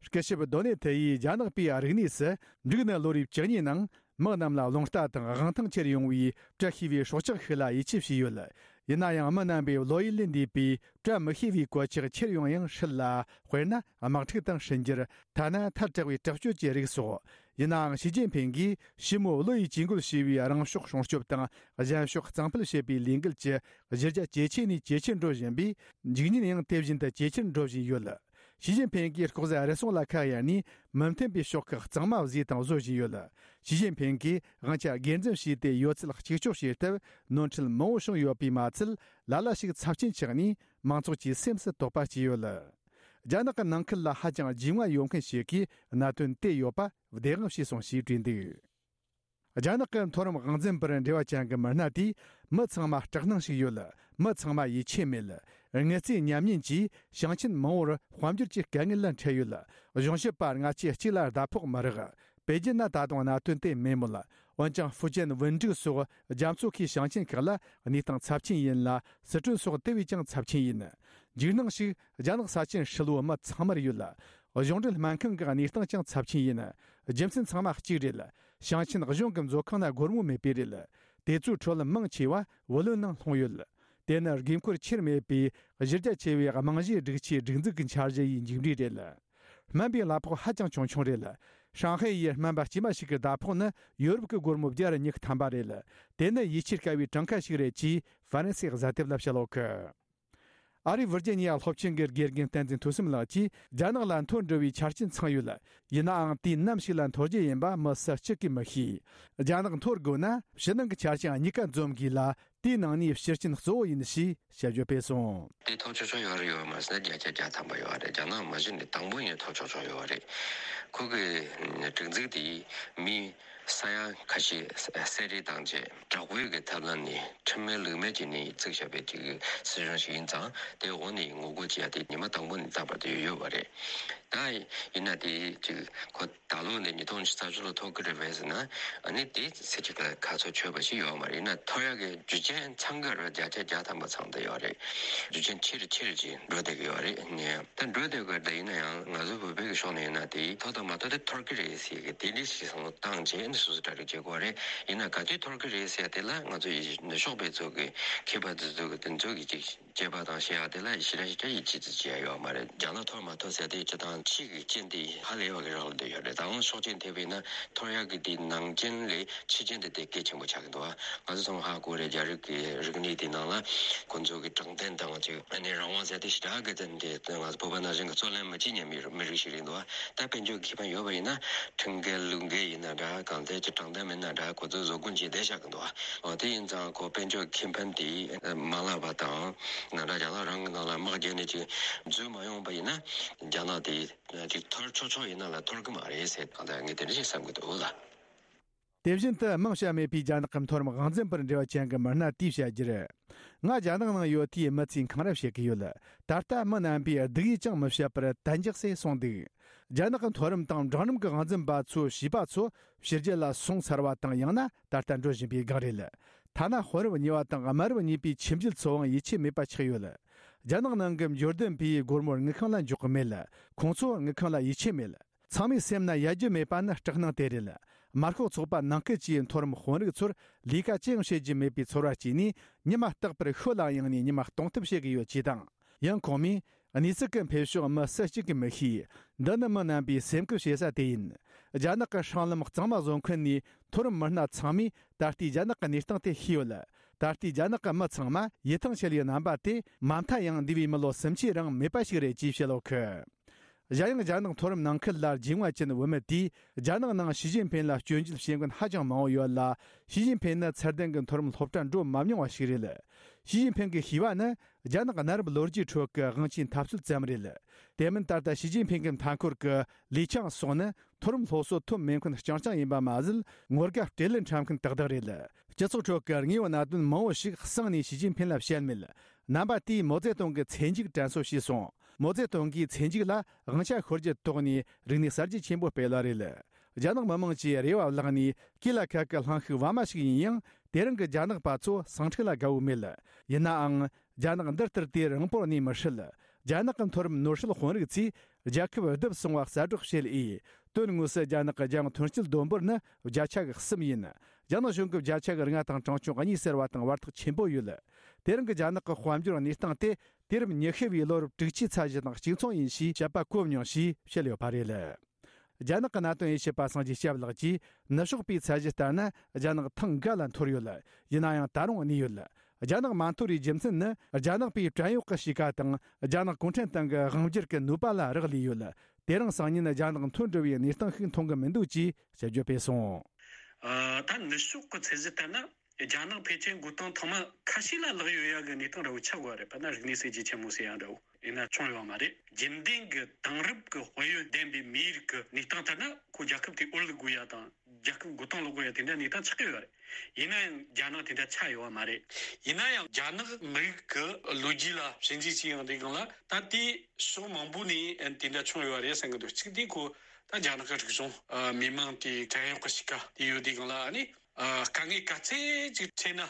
སྐུ་ཞབས་Donald Yu་ཡིས་རྒྱ་ནག་པའི་རིག་གནས་སུ་འབྲུག་ནི་ལོ་རེའི་བཅུ་གཉིས་ནང་མི་རྣམས་ལ་རླུང་རྟ་དང་དབང་ཐང་ཁྱེར་ཡོང་བའི་བཀྲ་ཤིས་པའི་སྲོག་ཆགས་ཤིག་ལ་ཡིད་ཆེས་བྱས་ཡོད། ཡིན་ན་ཡང་མི་རྣམ་པས་བློ་ཡུལ་ལས་འདས་པའི་བཀྲ་མི་ཤིས་པའི་གོད་ཆག་ཁྱེར་ཡོང་ཡང་སྲིད་ལ། དཔེར་ན་དམག་འཁྲུག་དང་འཕྲིན་སྦྱོར། ཐ་ན་མཐར་དྲག་པའི་དྲག་སྤྱོད་ཀྱི་རིགས་སོགས། ཡིན་ནའང་ཞི་ཅིན་ཕིང་གིས་ཕྱི་མོ་བློ་ཡིས་ཇུས་འགོད་བྱས་པའི་རང་ཕྱོགས་སྲུང་སྐྱོབ་དང་གཞན་ཕྱོགས་གཙང་སྤེལ་བྱེད་པའི་ལས་འགུལ་གྱི་གཞི་རྒྱ་ཇེ་ཆེ་ནས་ཇེ་ཆེར་འགྲོ་བཞིན་པས། འཇིག་ཉེན་ཡང་དེ་བཞིན་དུ་ཇེ་ཆེར་འགྲོ་བཞིན་ཡོད། ཞི་ཅིན་ཕིང་གིས་ལྐོག་ཟ་རུལ་སུངས་ལ་ཁ་གཡར་ནས་མི་མཐུན་པའི་ཕྱོགས་ཁག་གཙང་མ་བཟོས་དང་བཟོ་བཞིན་ཡོད། ཞི་ཅིན་ཕིང་གིས་དབང་ཆ་སྒེར་འཛིན་བྱས་ཏེ་ཡོད་ཚད་གཅིག་ལྕོགས་བྱེད་སྟབས་ནོར་འཁྲུལ་མང་བོ་བྱུང་ཡོད་པས་མ་ཚད། ལ་ལ་ཞིག་ཚབས་ཆེན་ཆགས་ནས་མང་ཚོགས་ཀྱི་སེམས་སུ་དོགས་པ་སྐྱེས་ཡོད། རྒྱ་ནག་གི་ནང་ཁུལ་ལ་ཧ་ཅང་རྒྱུས་མངའ་ཡོད་མཁན་ཞིག་གིས་གནད་དོན་དེ་ཡོད་པ་བདེན་དཔང་བྱས་སོང་ཞེས་བྲིས་འདུག་རྒྱ་ནག་གི་མཐོ་རིམ་དབང་འཛིན་པར་འབྲེལ་བ་ཅན་གྱི་མི་སྣ་དེས་མི་ཚང་མ་སྐྲག་སྣང་ཞིག་ཡོད། མི་ཚང་མ་ཡིད་ཆེས་མེད། དངུལ་རྩའི་ཉམས་ཉེན་གྱིས་ཞིང་ཆེན་མང་བོར་དཔལ་འབྱོར་གྱི་དཀའ་ངལ་ལ་འཕྲད་ཡོད། གཞུང་ཞབས་པ་སྔ་ཆད་གཅིག་ལ་ཟླ་ཕོགས་མི་རག་པེ་ཅིན་ན་ད་དུང་གནད་དོན་དེ་མེད་མོད། འོན་ཀྱང་ཧྥུ་ཅན་ཝུན་ཀྲུག་སོགས་རྒྱ་མཚོ་ཁའི་ཞིང་ཆེན་ཁག་ལ་གནས་སྟངས་ཚབས་ཆེན་ཡིན་ལ། སི་ཁྲོན་སོགས་དེ་བས་ཀྱང་ཚབས་ཆེན་ཡིན། འཇིགས་སྣང་ཞིག་རྒྱ་ནག་ས་ཆེན་ཧྲིལ་བོ་མི་ཚང་མར་ཡོད། གཞུང་འབྲེལ་སྨན་ཁང་གི་གནས་སྟངས་ཀྱང་ཚབས་ཆེན་ཡིན། རྒྱུ་མཚན་ཚང་མ་གཅིག་རེད། ཞིང་ཆེན་གཞུང་གི་མཛོད་ཁང་ན་སྒོར་མོ་མེད་པས་རེད། དེ་ཚོའི་ཁྲོད་མང་ཆེ་བ་བུ་ལོན་ནང་ལྷུང་ཡོད། དེ་ནི་དགོས་མཁོར་ཆེར་མེད་པའི་གཞི་རྒྱ་ཆེ་བའི་རྨང་གཞིའི་སྒྲིག་ཆས་སྒྲིག་འཛུགས་ཀྱི་འཆར་གཞི་ཡི་མཇུག་འབྲས་རེད། སྨན་པའི་གླ་ཕོགས་ཧ་ཅང་ཆུང་ཆུང་རེད། ཧྲང་ཧའེ་ཡི་སྨན་པ་དཀྱུས་མ་ཞིག་གི་ཟླ་ཕོགས་ནི་ཡོ་རོབ་ཀྱི་སྒོར་མོ་བརྒྱ་དང་ཉི་ཤུ་ཐམ་པ་རེད། དེ་ནི་ཡིད་ཆེས་དཀའ་བའི་གྲངས་ཀ་ཞིག་རེད་ཅེས་ཧྥ་རན་སིའི་གཟའ་དེབ་ལ་བཤད་ཡོད་གི། ཨ་རིའི་ཝིར་ཇི་ནི་ཡ་སློབ་ཆེན་གྱི་དགེ་རྒན་བསྟན་འཛིན་ཐོས་བསམ་ལགས་ཀྱིས་རྒྱ་ནག་ལ་འཐོར་འགྲོ་བའི་ཆ་རྐྱེན་ཚང་ཡོད། ཡིན་ནའང་དུས་ནམ་ཞིག་ལ་འཐོར་རྒྱུ་ཡིན་པ་མི་སུ་གཅིག་གིས་མི་ཤེས། རྒྱ་ནག་འཐོར་དགོས་ན་ཕྱི་ནང་གི་ཆ་རྐྱེན་གཉིས་ཀ་འཛོམས་དགོས་ལ། དེའི་ནང་ནས་ཕྱིར་རྐྱེན་གཙོ་བོ་ཡིན་ཞེས་དཔྱད་བརྗོད་སྤེལ་སོང་། དེ་ཐོབ་ཆོག་ཆོག་ཡོད་རེད་ཡོད་མ་རེད་ཟེར་ན་བརྒྱ་ཆ་བརྒྱ་ཐམ་པ་ཡོད་རེད། རྒྱ་ནག་མ་གཞི་ནས་དང་པོ་ཡིན་ཐོབ་ཆོག་ཆོག་ཡོད་རེད། ཁོ་གི་སྒྲིག་འཛུགས་དེ་མི་ས་ཡ་ཁ་ཤས་གསད་རེས་བཏང་རྗེས་དྲག་པོའི་གི་ཐབས་ལམ་ནས་ཁྲིམས་མེད་ལུགས་མེད་བྱས་ནས་བཙུགས་བཞག་པའི་ཅིག་སྲིད་གཞུང་ཞིག་ཡིན་ཙང་དེ་འོག་ནས་ངོ་རྒོལ་བྱེད་ཡ་དེ་ཉི་མ་དང་པོ་ནས་རྟག་པར་དུ་ཡོད་ཡོད་པ་རེད། ད་ཡིན་ན་དེ་ཅིག་ཁོ་ད་ལོ་ནས་ཉིས་སྟོང་ཉི་ཤུ་རྩ་བཞི་ལོ་ཐོབ་ཀྱི་རེད་པས་ཟེར་ན་ཨ་ནི་དེ་ཚེ་གཅིག་ལ་ཁ་ཚོ་ཆོད་པ་ཞིག་ཡོད་མ་རེད། ཡིན་ན་ཐོབ་ཡག་གི་རྒྱུ་རྐྱེན་ཚང་གི་རེད། བརྒྱ་ཆ་བརྒྱ་ཐམ་པ་ཚང་བསྡད་ཡོད་རེད། རྒྱུ་རྐྱེན་ཆེ་རུ་ཆེ་རུ་ཅིག་འགྲོ་བསྡད་ཀྱི་ཡོད་རེད། ནས་ད་འགྲོ་བསྡད་དགོས་ད་ཡིན་ན་ཡང་ང་ཚོ་བོད་པའི་གི་ཕྱོགས་ནས་ཡིན་ན་དེ་ཐོབ་དང་མ་ཐོབ་དེ་ཐོབ་ཀྱི་རེད་ཟེར་གི་དེ་འདྲ་ཞིག་བསམ་བློ་བཏང་རྗེས་ནི་སོ་སོ་གྲ་སྒྲིག་བྱེད་དགོས་རེད། ཡིན་ན་ག་དུས་ཐོབ་ཀྱི་རེད་ཟེར་དེ་ལ་ང་ཚོ་ཡི་ནུབ་ཕྱོགས་པའི་ཚོ་གི་མཁས་པ་དེ་ཚོ་གི་དེ་ཚོ་གི་ཅིག་དཔྱད་པ་དང་བཤད་ཡག་དེ་ལ་ཞེ་དྲག་ཞེ་དྲག་ཡིད་ཆེས་ཅིག་བྱེད་ཡག་ཡོད་མ་རེད། རྒྱ་ནག་ཐོབ་མ་ཐོབ་ཟེར་དེ་སྤྱི་དང་ཕྱི་གི་རྐྱེན་དེ་ཧ་ལས་པ་གི་རག་ལ་བསྡད་ཡོད་རེད། ད་དབང་ཕྱོགས་ཅན་ཐེབས་པས་ན་ཐོབ་ཡག་གི་དེ་ནང་རྐྱེན་ལས་ཕྱི་རྐྱེན་དེ་དེ་གལ་ཆེན་པོ་ཆགས་ཀྱི་འདུག་ང་ཚོ་ཚང་མ་ཧ་གོ་རེད། རྒྱ་རིགས་ཀྱི་རིག་གནས་དེ་ནང་ལ་ཁོང་ཚོ་གི་དྲང་བདེན་དང་ཅིག་ཨ་ནི་རང་དབང་ཟེར་དེ་ཞེ་དྲག་གི་དེ་འདྲ་ང་ཚོ་བོད་པ་ནང་བཞིན་གི་རྩོད་ལེན་མི་བྱེད་མཁན་མི་མི་རིགས་ཤིག་རེད་འདུག་ད་དཔལ་འབྱོར་ཁེ་ཕན་ཡོད་པ་ཡིན་ན་ཁྲིམས་འགལ་ལུགས་འགལ་ཡིན་ན་འདྲ་གང་ལྟར་ཅིག་དྲང་བདེན་མིན་ན་འདྲ་ཁོ་ཚོས་བཟོ་སྐུལ་བྱས་བསྡད་བཞག་གི་འདུག་འོ་དེ་ཡིན་ཙང་ཁོ་དཔལ་འབྱོར་ཁེ་ཕན་དེ་མ་བརླག་པ་དང་ང་འདྲ་རྒྱ་ནག་རང་གི་ནང་ལ་དམག་རྒྱག་ནས་ཅིག་འཛུལ་མ་ཡོང་པ་ཡིན་ན་རྒྱ་ནག་དེ་ཅིག་ཐོར་ཆོག་ཆོག་ཡིན་ན་ལ་ཐོར་གི་མ་རེད་ཟེར་གང་ལྟར་ངས་དེ་འདྲ་ཞིག་བསམ་གི་འདུག་ལ། དེ་བཞིན་དུ་མིང་བཤད་མེད་པའི་རྒྱ་ནག་གི་མཐོ་རིམ་དབང་འཛིན་པར་འབྲེལ་བ་ཅན་གྱི་མི་སྣ་དེས་བཤད་རྒྱུར། ང་རྒྱ་ནག་ནང་ཡོད་དུས་མི་ཚོས་འཁང་ར་བྱེད་ཀྱི་ཡོད། ད་ལྟ་མི་རྣམ་པས་སྡུག་ཡུས་ཀྱང་མི་བཤད་པར་གཏན་འཇགས་སུ་སོང་འདུག་རྒྱ་ནག་གི་མཐོ་རིམ་དང་འབྲིང་རིམ་གྱི་དབང་འཛིན་པ་ཚོ་བྱིས་པ་ཚོ་ཕྱི་རྒྱལ་ལ་སོང་ཚར་བ་དང་ཡང་ན་ད་ལྟ་འགྲོ་བཞིན་པའི་སྒང་རེད། ཐ་ན་དཔོན་རབས་གཉིས་པ་དང་དམའ་རབས་གཉིས་པའི་ཁྱིམ་རྒྱུད་ཚོའང་ཡིད་ཆེས་མེད་པ་ཆགས་ཡོད། རྒྱ་ནག་ནང་གི་འབྱོར་ལྡན་པས་སྒོར་མོར་དངུལ་ཁང་ལ་འཇོག་གི་མེད། ཁོང་ཚོར་དངུལ་ཁང་ལ་ཡིད་ཆེས་མེད། ཚང་མའི་སེམས་ན་ཡལ་རྒྱུ་མེད་པ་ནི་སྐྲག་སྣང་དེ་རེད། དམར་ཤོག་ཚོགས་པ་ནང་ཁུལ་གྱིས་མཐོ་རིམ་དཔོན་རིགས་ཚོར་ལས་ཀ་ཅི་ཡང་བྱེད་རྒྱུ་མེད་པའི་ཚོར་བ་སྐྱེས་ནས་ཉི་མ་རྟག་པར་ཤོད་ལ་གཡེང་ནས་ཉི་མ་གཏོང་ཐབས་བྱེད་ཀྱི་ཡོད་ཅེས་དང་། ཡང་ཁོང་མོས། གནས་ཚུལ་གྱི་འཕེལ་ཕྱོགས་མི་སུ་གཅིག་གིས་མི་ཤེས། འདི་ནི་མི་རྣམ་པའི་སེམས་ཁུར་བྱེད་ས་དེ་ཡིན། རྒྱ་ནག་གི་སྲང་ལམ་གཙང་མ་བཟོ་མཁན་ནས་མཐོ་རིམ་མི་སྣ་ཚང་མས་ད་ལྟའི་རྒྱ་ནག་གི་གནས་སྟངས་དེ་ཤེས་ཡོད། ད་ལྟའི་རྒྱ་ནག་གི་མི་ཚང་མ་ཡིད་ཐང་ཆད་ཡོད་རྣམ་པ་དེ་མ་མཐའ་ཡང་འདས་པའི་མི་ལོ་སུམ་ཅུའི་རིང་མེད་པ་ཞིག་རེད་ཅེས་བཤད་ཡོད་གི། གཞན་ཡང་རྒྱ་ནག་མཐོ་རིམ་ནང་ཁུལ་ལ་རྒྱུས་མངའ་ཅན་བུད་མེད་དེས་རྒྱ་ནག་ནང་ཞི་ཅིན་ཕིན་ལ་སྐྱོན་བརྗོད་བྱེད་མཁན་ཧ་ཅང་མང་བོ་ཡོད་ལ། ཞི་ཅིན་ཕིན་ནི་ཚད་ལྡན་གྱི་མཐོ་རིམ་སློབ་གྲྭ་འགྲོ་མ་མྱོང་བ་ཞིག་རེད། ཞི་ཅིན་ཕིན་གྱི་ཤེས་པ་ནི་རྒྱ་ནག་གནའ་རབས་ལོ་རྒྱུས་ཁྲོད་ཀྱི་དབང་ཆའི་འཐབ་རྩོད་ཙམ་རེད། དེ་མིན་ད་ལྟ་ཞི་ཅིན་ཕིན་གྱི་མཐའ་འཁོར་གྱི་ལི་ཆང་སོགས་ནི་མཐོ་རིམ་སློབ་གསོ་ཐོབ་མེད་མཁན་རྐྱང་རྐྱང་ཡིན་པ་མ་ཟད། ངོ་དགའ་སྤྲེལ་ལད་འཁྲབ་མཁན་ཏག་ཏག་རེད། སྤྱི་ཚོགས་ཁྲོད་ཀྱི་དངོས་པོ་གནད་དོན་མང་བོ་ཞིག་གསང་ནས་ཞི་ཅིན་ཕིན་ལ་བཤད་མེད། རྣམ་པ་དེས་མའོ་ཙེ་ཏུང་གི་ཚེ་མཇུག་དྲན་གསོ་བྱས་སོང་། མའོ་ཙེ་ཏུང་གིས་ཚེ་མཇུག་ལ་དབང་ཆ་ཤོར་རྒྱུ་དོགས་ནས་རིག་གནས་གསར་བརྗེ་ཆེན་པོ་སྤེལ་བ་རེད། རྒྱ་ནག་མི་དམངས་ཀྱིས་རེ་བ་བརླག་ནས་སྐེ་ལ་ཁ་གི་གླིང་ཤུགས་བར་མ་ཞིག་ཡིན་ཡང་ དེ་རིང་གི་རྒྱ་ནག་པ་ཚོ་ཟིང་འཁྲུག་ལ་དགའ་བོ་མེད། ཡིན་ནའང་། རྒྱ་ནག་འདི་ལྟར་དུས་རིང་པོར་གནས་མི་སྲིད། རྒྱ་ནག་གི་མཐོ་རིམ་ནོར་སྲིད་དཔོན་རིགས་ཚོས་རྒྱལ་ཁབ་བསྡུ་བར་སོང་བ་གསལ་བསྒྲགས་བྱེད་འོས། དོན་དངོས་སུ་རྒྱ་ནག་གི་རྒྱང་ཐོན་སྐྱེད་བསྡོམས་འབོར་ནི་བརྒྱ་ཆ་གི་གསུམ་ཡིན། རྒྱ་ནག་གཞུང་གི་བརྒྱ་ཆ་གི་ལྔ་དང་གྲངས་ཆུང་གཉིས་ཟེར་བ་དང་བར་ཐག་ཆེན་པོ་ཡོད། དེ་རིང་གི་རྒྱ་ནག་གི་དཔལ་འབྱོར་གནས་སྟངས་དེ་དུས་རབས་ཉི་ཤུ་བའི་ལོ་རབས་དྲུག་ཅུའི་ཚད་གཞི་དང་གཅིག་མཚུངས་ཡིན་ཞེས་དཔྱད་པ་བཀོད་མྱོང་ཞེས་བཤད་ཡོད་པ་རེད། རྒྱ་ནག་གི་གནད་དོན་དབྱེ་ཞིབ་པ་སངས་རྒྱས་སྐྱབས་ལགས་ཀྱིས། ནུབ་ཕྱོགས་པའི་ཚད་གཞི་ལྟར་ན་རྒྱ་ནག་ཐེངས་འགའ་ལ་འཐོར་ཡོད། ཡིན་ན་ཡང་ད་རུང་གནས་ཡོད། རྒྱ་ནག་མ་འཐོར་བའི་རྒྱུ་མཚན་ནི། རྒྱ་ནག་པའི་བྲན་གཡོག་གི་གཤིས་ཀ་དང་། རྒྱ་ནག་གུང་ཁྲན་ཏང་གི་དབང་སྒྱུར་གྱི་ནུས་པ་ལ་རག་ལས་ཡོད། དེ་རིང་སང་ཉིན་རྒྱ་ནག་འཐོར་འགྲོ་བའི་གནས་སྟངས་ཤིག་མཐོང་གི་མི་འདུག་ཅེས་དཔྱད་བརྗོད་སྤེལ་སོང་། ཨ། ད་ནུབ་ཕྱོགས་ཀྱི་ཚད་གཞི་ལྟར་ན། རྒྱ་ནག་ཕལ་ཆེར་འགོ་སྟངས་ཐོག་མ་ཁ་ཤས་ལ་ལག་ཡོད་ཡ་གི་གནས་སྟངས་འདྲ་བོ་ཆགས་དགོས་རེད། དཔེར་ན་རིག་གནས་གསར་བརྗེ་ཆེན་མོ་ཟེར་ཡ་འདྲ་བོ་ཡིན་ན་བྱུང་ཡོད་མ་རེད། རྒྱུན་ལྡན་གྱི་དེང་རབས་ཀྱི་དཔལ་ཡོན་ལྡན་པའི་མིའི་རིགས་ཀྱི་གནས་སྟངས་ལྟར་ན། ཁོ་རྒྱལ་ཁབ་དེ་འོར་ལུག་དགོས་ཡ་དང་རྒྱལ་ཁབ་འགོ་སྟངས་ལོག་དགོས་ཡ་དེ་འདྲ་གནས་སྟངས་ཆགས་ཀྱི་ཡོད་རེད། ཡིན་ན་ཡང་རྒྱ་ནག་དེ་འདྲ་ཆགས་ཡོད་པ་མ་རེད། ཡིན་ན་ཡང་རྒྱ་ནག་མི་རིགས་ཀྱི་ལོ་རྒྱུས་ལ་ཞིབ་འཇུག་བྱས་ཡོང་དུས་སྒང་ལ། ད་དེ་ཕྱོགས་མང་པོ་ནས་དེ་འདྲ་བྱུང་ཡོད་པ་རེད་བསམ་གྱི་འདུག་གཅིག་དེ་ཁོ་ད་རྒྱ་ནག་གི་རིག་གཞུང་། ཨ། མི་མང་དེ་བྲན་གཡོག་གི་གཤིས་ཀ་དེ་ཡོད་དུས་སྒང་ལ། ཨ་ནི། ཨ། དཀའ་ངལ་ག་ཚད་ཅིག་འཕྲད་ན་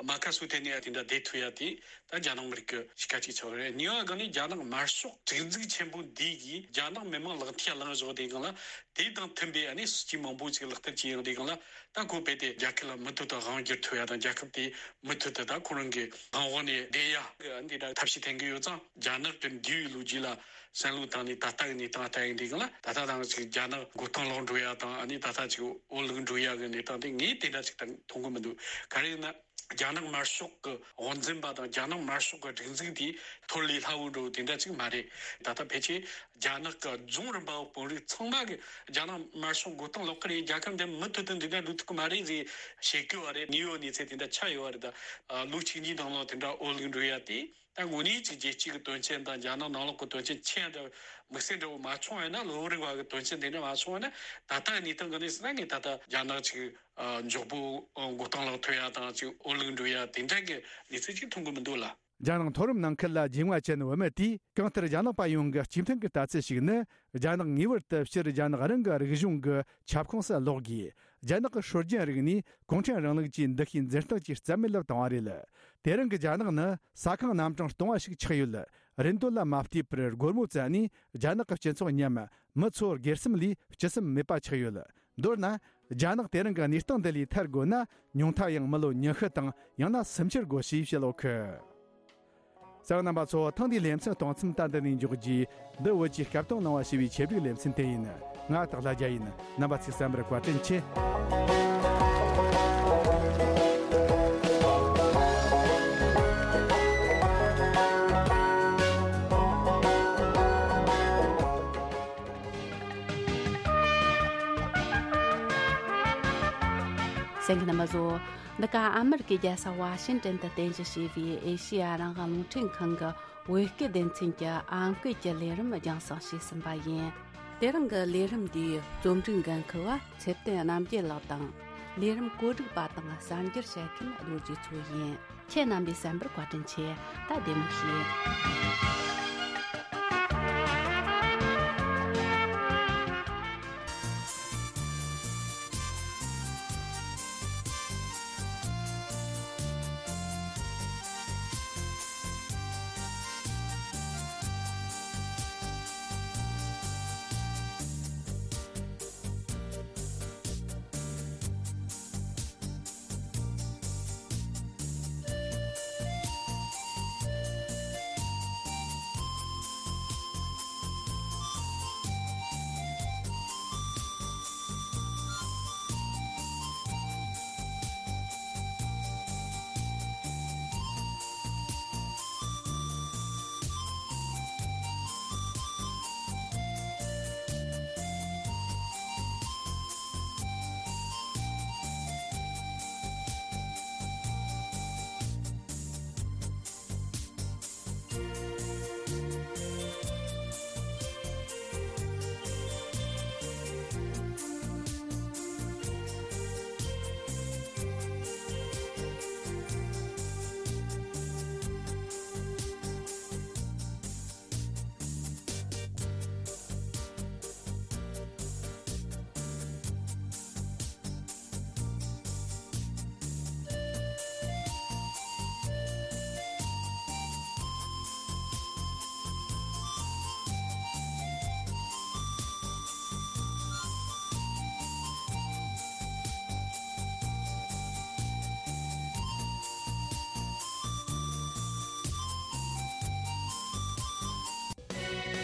མ་ཁ་སུ་ཐེ་ནས་དེ་འདྲ་བསྡད་ཐུབ་ཡ་དེ་ད་རྒྱ་ནག་མི་རིགས་ཀྱི་གཤིས་ཀ་ཅིག་ཆགས་རེད། གཉིས་པ་གང་ནི་རྒྱ་ནག་དམར་ཤོག་སྒྲིག་འཛུགས་ཆེན་པོ་འདི་གིས་རྒྱ་ནག་མི་མང་ལག་མཐིལ་ལངས་བཞག་དུས་སྒང་ལ། དེ་དང་མཐུན་པའི་ཨ་ནི་སྲིད་ཇུས་མང་པོ་ཅིག་ལག་བསྟར་བྱས་ཡོང་དུས་སྒང་ལ། ད་ཁོ་རྦད་དེ་རྒྱལ་ཁབ་ལ་མུ་མཐུད་དུ་དབང་བསྒྱུར་ཐུབ་ཡ་དང་། རྒྱལ་ཁབ་དེ་མུ་མཐུད་དུ་ད་ཁོ་རང་གི་དབང་འོག་ནས་བསྡད་ཡ་འདི་འདྲ་ཐབས་ཤེས་འཐེན་གྱི་ཡོད་ཙང་། རྒྱ་ནག་གི་འདས་པའི་ལོ་རྒྱུས་ལ་བསམ་བློ་བཏང་ནས་ད་ལྟ་གི་གནས་སྟངས་ལྟ་ཡོང་དུས་སྒང་ལ། ད་ལྟ་དང་ཅིག་རྒྱ་ནག་མགོ་རྟིང་སློག་འགྲོ་ཡ་དང་། ཨ་ནི་ད་ལྟ་ཅིག་འོར་ལུག་འགྲོ་ཡ་གི་གནས་སྟངས་དེ་ངས་དེ་འདྲ་ཅིག་ད་མཐོང་གི་མི་འདུག་ག་རེ་ཡིན་ན། རྒྱ་ནག་དམར་ཤོག་གི་དབང་འཛིན་པ་དང་རྒྱ་ནག་དམར་ཤོག་གི་སྒྲིག་འཛུགས་དེ་འཐོར་ལས་སླ་བོ་འགྲོ་དེ་འདྲ་ཅིག་མ་རེད། ད་ལྟ་ཕལ་ཆེར་རྒྱ་ནག་གི་རྫོང་རིམ་པ་བོད་དཔོན་རིགས་ཚང་མ་གི་རྒྱ་ནག་དམར་ཤོག་མགོ་རྟིང་སློག་གི་རེད། རྒྱལ་ཁབ་འདི་མུ་མཐུད་དུ་འདི་འདྲ་འགྲོ་ཐུབ་ཀྱི་མ་རེད་ཟེར་བཤད་ཀྱི་ཡོད་རེད། གནས་ཡོད་གནས་ཚུལ་དེ་འདྲ་ཆགས་ཡོད་རེད། ད་ལོ་གཅིག་གཉིས་ནང་ལོགས་དེ་འདྲ་འོར་ལུག་འགྲོ་ཡ་དེ། ད་དངོས་གནས་ཅིག་རྒྱལ་སྤྱི་གི་དོན་ཆེན་དང་རྒྱ་ནག་ནང་ལོགས་ཀྱི་དོན་ཆེན་ཆེ་འདྲ་དམིགས་བསལ་འདྲ་བོ་མ་བྱུང་བ་ཡིན་ན། ལོ་རེ་བ་གི་དོན་ཆེན་དེ་འདྲ་མ་བྱུང་བ་ན། ད་ལྟ་གནས་སྟངས་གི་གནས་སུ་ན་ངས་ད་ལྟ་རྒྱ་ནག་ཅིག་ཨ། མགྱོགས་པོ་མགོ་རྟིང་སློག་ཐུབ་ཡ་དང་ཅིག་འོར་ལུག་འགྲོ་ཡ་དེ་འདྲ་གི་གནས་ཚུལ་ཅིག་མཐོང་གི་མི་འདུག་ལ། རྒྱ་ནག་མཐོ་རིམ་ནང་ཁུལ་ལ་རྒྱུས་མངའ་ཅན་བུད་མེད་དེས། གང་ལྟར་རྒྱ་ནག་པ་ཡོངས་ཀྱི་སྤྱི་མཐུན་གྱི་ལྟ་ཚུལ་ཞིག་ནི། རྒྱ་ནག་ངེས་པར་དུ་སྤྱིར་རྒྱ་ནག་རང་གི་རིག་གཞུང་གི་ཁྱབ་ཁོངས་སུ་ལོག་དགོས། རྒྱ་ནག་གི་སྲོལ་རྒྱུན་རིག་གནས་གུང་ཁྲན་རིང་ལུགས་ཀྱི་འདུ་ཤེས་འཛིན་སྟངས་ཀྱི་རྩ་མེད་ལ་བཏང་བ་རེད། དེ་རིང་གི་རྒྱ་ནག་ནི་ས་ཁང་རྣམ་གྲངས་སྟོང་བ་ཞིག་ཆགས་ཡོད། རིན་དོད་ལ་མ་ལྟོས་པར་སྒོར་མོ་བཙལ་ནས་རྒྱ་ནག་གི་སྤྱི་ཚོགས་མཉམ་མི་ཚོ་སྒེར་སེམས་ལས་སྤྱི་སེམས་མེད་པ་ཆགས་ཡོད། མདོར་ན། རྒྱ་ནག་དེ་རིང་གི་གནས་སྟངས་འདི་ལས་ཐར་དགོས་ན། ཉུང་མཐའ་ཡང་མི་ལོ་ཉི་ཤུ་དང་ཡང་ན་སུམ་ཅུ་དགོས་ཞེས་བཤད་ཡོད་གི། གསན་མཁན་རྣམ་པ་ཚོ། ཐེངས་འདིའི་ལེ་ཚན་གཏོང་མཚམས་ད་འདི་ནས་འཇོག་རྒྱུ། འདི་བོད་ཀྱི་སྐད་གཏོང་གླེང་བ་ཞེས་པའི་ཆེད་སྒྲིག་ལེ་ཚན་དེ་ཡིན། ང་སྟག་ལྷ་རྒྱལ་ཡིན། རྣམ་པ་ཚོས་གསན་པར་བཀའ་དྲིན་ཆེ། གསན་མཁན་རྣམ་པ་ཚོ། འདི་ག་ཨ་མེ་རི་ཀའི་རྒྱལ་ས་ཝ་ཤིང་ཏན་དུ་རྟེན་གཞི་བྱས་པའི་ཨེ་ཤེ་ཡ་རང་དབང་རླུང་འཕྲིན་ཁང་གི་བོད་སྐད་སྡེ་ཚན་གྱི་ཨང་ཀི་གི་ལས་རིམ་རྒྱང་སྲིང་བྱས་ཟིན་པ་ཡིན། དེ་རིང་གི་ལས་རིམ་འདིའི་རྩོམ་སྒྲིག་འགན་འཁུར་བ་ཚེ་བརྟན་རྣམ་རྒྱལ་ལགས་དང་། ལས་རིམ་བཀོད་སྒྲིག་པ་དང་གསར་འགྱུར་བཤད་མཁན་རྡོ་རྗེ་མཚོ་ཡིན། ཁྱེད་རྣམ་པས་གསན་པར་བཀའ་དྲིན་ཆེ། ད་བདེ་མོ་བྱོས།